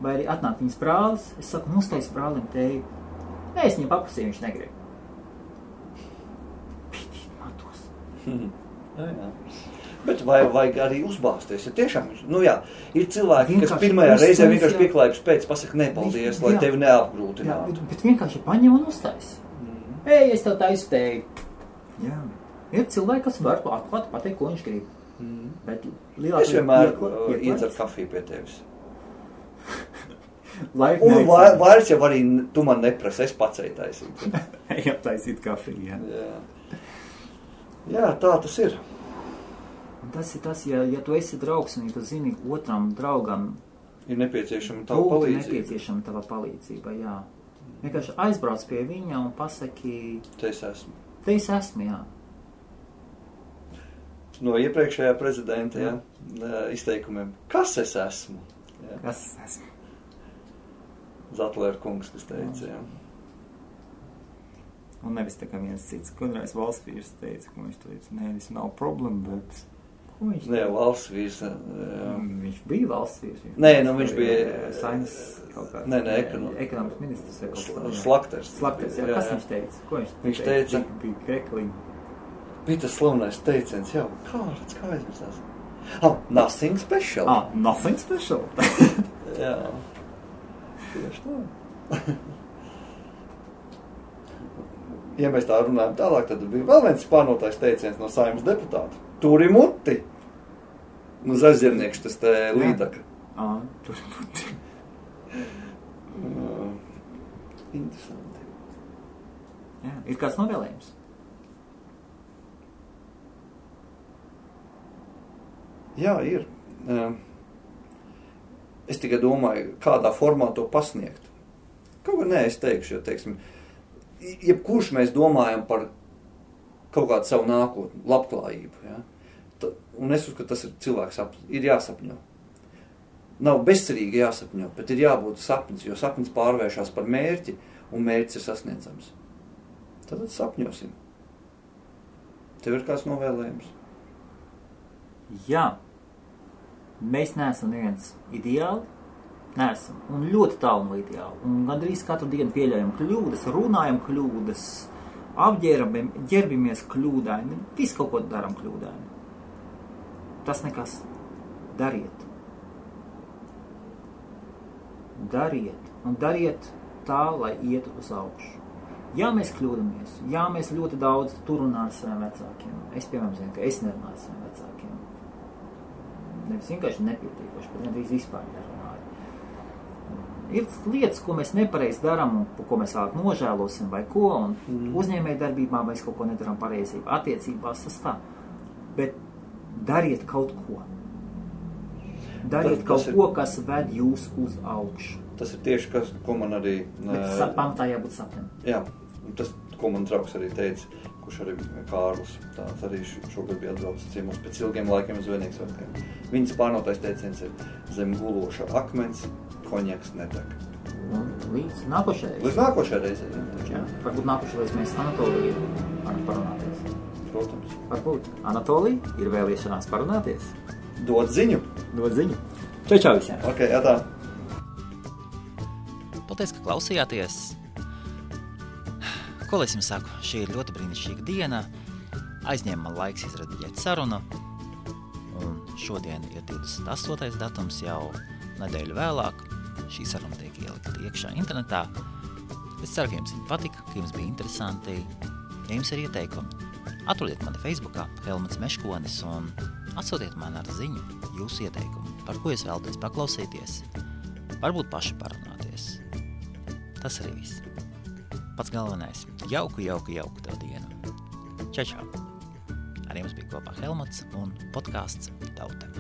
vai arī atnāk viņas brālis. Es saku, uztais brālim tēju. Nē, es viņam paprasīju, viņš negrib. Pitīt matos. Jā. Bet vajag arī uzbāzties, ja tiešām, ir cilvēki, kas pirmajā reizē vienkārši pieklājības pēc pasaka nepaldies, lai tevi neapgrūtinātu. Bet vienkārši paņem un uztais. Es tev taisu tēju. Jā. Ir cilvēki, kas var atklāt pateikt, ko viņš grib. Bet es vienmēr iedzeru kafiju pie tevis. Un vairs jau arī tu man neprasi, es pats taisīt. Ejam taisīt kafiju, Jā, tā tas ir. Un tas ir tas, ja tu esi draugs un ja tu zini otram draugam ir nepieciešama tava palīdzība, jā. Vienkārši aizbrauc pie viņa un pasaki Te es esmu. Te es esmu, jā. No iepriekšējā prezidenta izteikumiem. Kas es esmu? Jā. Kas es esmu? Zatlēra kungs, kas teica, jā. Un nevis tā kā viens cits, kādreiz valsts vīrs teica, ka viņš teica, nē, tas nav problēma, bet... Ko viņš teica? Nē, valsts vīrs... Viņš bija valsts vīrs. Nē, viņš bija... Saimas kaut kā... Nē, ekonomikas ministrs vai kaut kā. Slakters. Slakters, jā. Kas viņš teica? Ko viņš teica? Bija krekliņi. Bija tas slavenais teiciens, jā, kā aizmirstās? Nothing special. Nothing special. Jā. Tieši tā. Ja mēs tā runājam tālāk, tad bija vēl viens spārnotais teiciens no Saeimas deputāta. Turi muti. Nu, zaļzirniekš tas te līdaka. Turi muti. Interesanti. Jā, ir kāds novēlējums? Jā, ir. Es tikai domāju, kādā formā to pasniegt. Kaut kā nē, es teikšu, jo, teiksim, jebkurš mēs domājam par kaut kādu savu nākotni, labklājību. Ja? Un es uzskatu, ka tas ir cilvēks sapnis. Ir jāsapņo. Nav bezcerīgi jāsapņo, bet ir jābūt sapnis, jo sapnis pārvēršās par mērķi, un mērķis ir sasniedzams. Tad sapņosim. Tev ir kāds novēlējums? Jā. Mēs neesam neviens ideāli. Neesam. Un ļoti tālu no ideāli. Un gandrīz katru dienu pieļaujam kļūdas, runājam kļūdas, ģerbimies kļūdaini, visu kaut ko daram kļūdaini. Tas nekas. Dariet. Dariet. Un dariet tā, lai ietu uz augšu. Jā, mēs kļūdamies. Jā, mēs ļoti daudz tur runājam ar saviem vecākiem. Es, piemēram, zinu, ka es nerunāju ar saviem vecākiem. Nevis vienkārši nepietīkoši, bet nedrīz vispār nerunāju. Ir lietas, ko mēs nepareizi darām un ko mēs vēlāk nožēlosim vai ko, un uzņēmēju darbībā mēs kaut ko nedaram pareizi, attiecībās tas tā. Bet dariet kaut ko. Dariet kaut ko, kas ved jūs uz augšu. Tas ir tieši, ko man arī... Bet pamatā jābūt sapnim. Jā, tas, ko man draugs arī teica, kurš arī Kārlis, tāds arī šogad bija atbraucis ciemos pēc ilgiem laikiem uz Svētdienas svētkiem. Viņas pārnotais teiciens ir zem guloša akmens, konjaks nedeg. Un līdz nākošajai. Līdz nākošajai reizei. Jā, varbūt nākošais mēs Anatoliju parunāties. Protams. Varbūt Anatolija ir vēlēšanās parunāties. Dod ziņu. Dod ziņu. Čau visiem. Ok, tā. Paldies, ka klausījāties. Ko lai es jums saku? Šī ir ļoti brīnišķīga diena. Aizņēma man laiks izrediģēt sarunu. Un šodien ir 28. datums, jau nedēļu vēlāk. Šī saruna tiek ielikta iekšā internetā. Es ceru, ka jums viņa patika, ka jums bija interesanti. Ja jums ir ieteikumi, atrodiet mani Facebookā Helmuts Meškonis un atsūtiet man ar ziņu jūsu ieteikumu, par ko jūs vēlaties paklausīties. Varbūt paši parunāties. Tas arī viss. Pats galvenais. Jauku tev dienu. Čau! Ar jums bija kopā Helmuts un podcasts Tauta.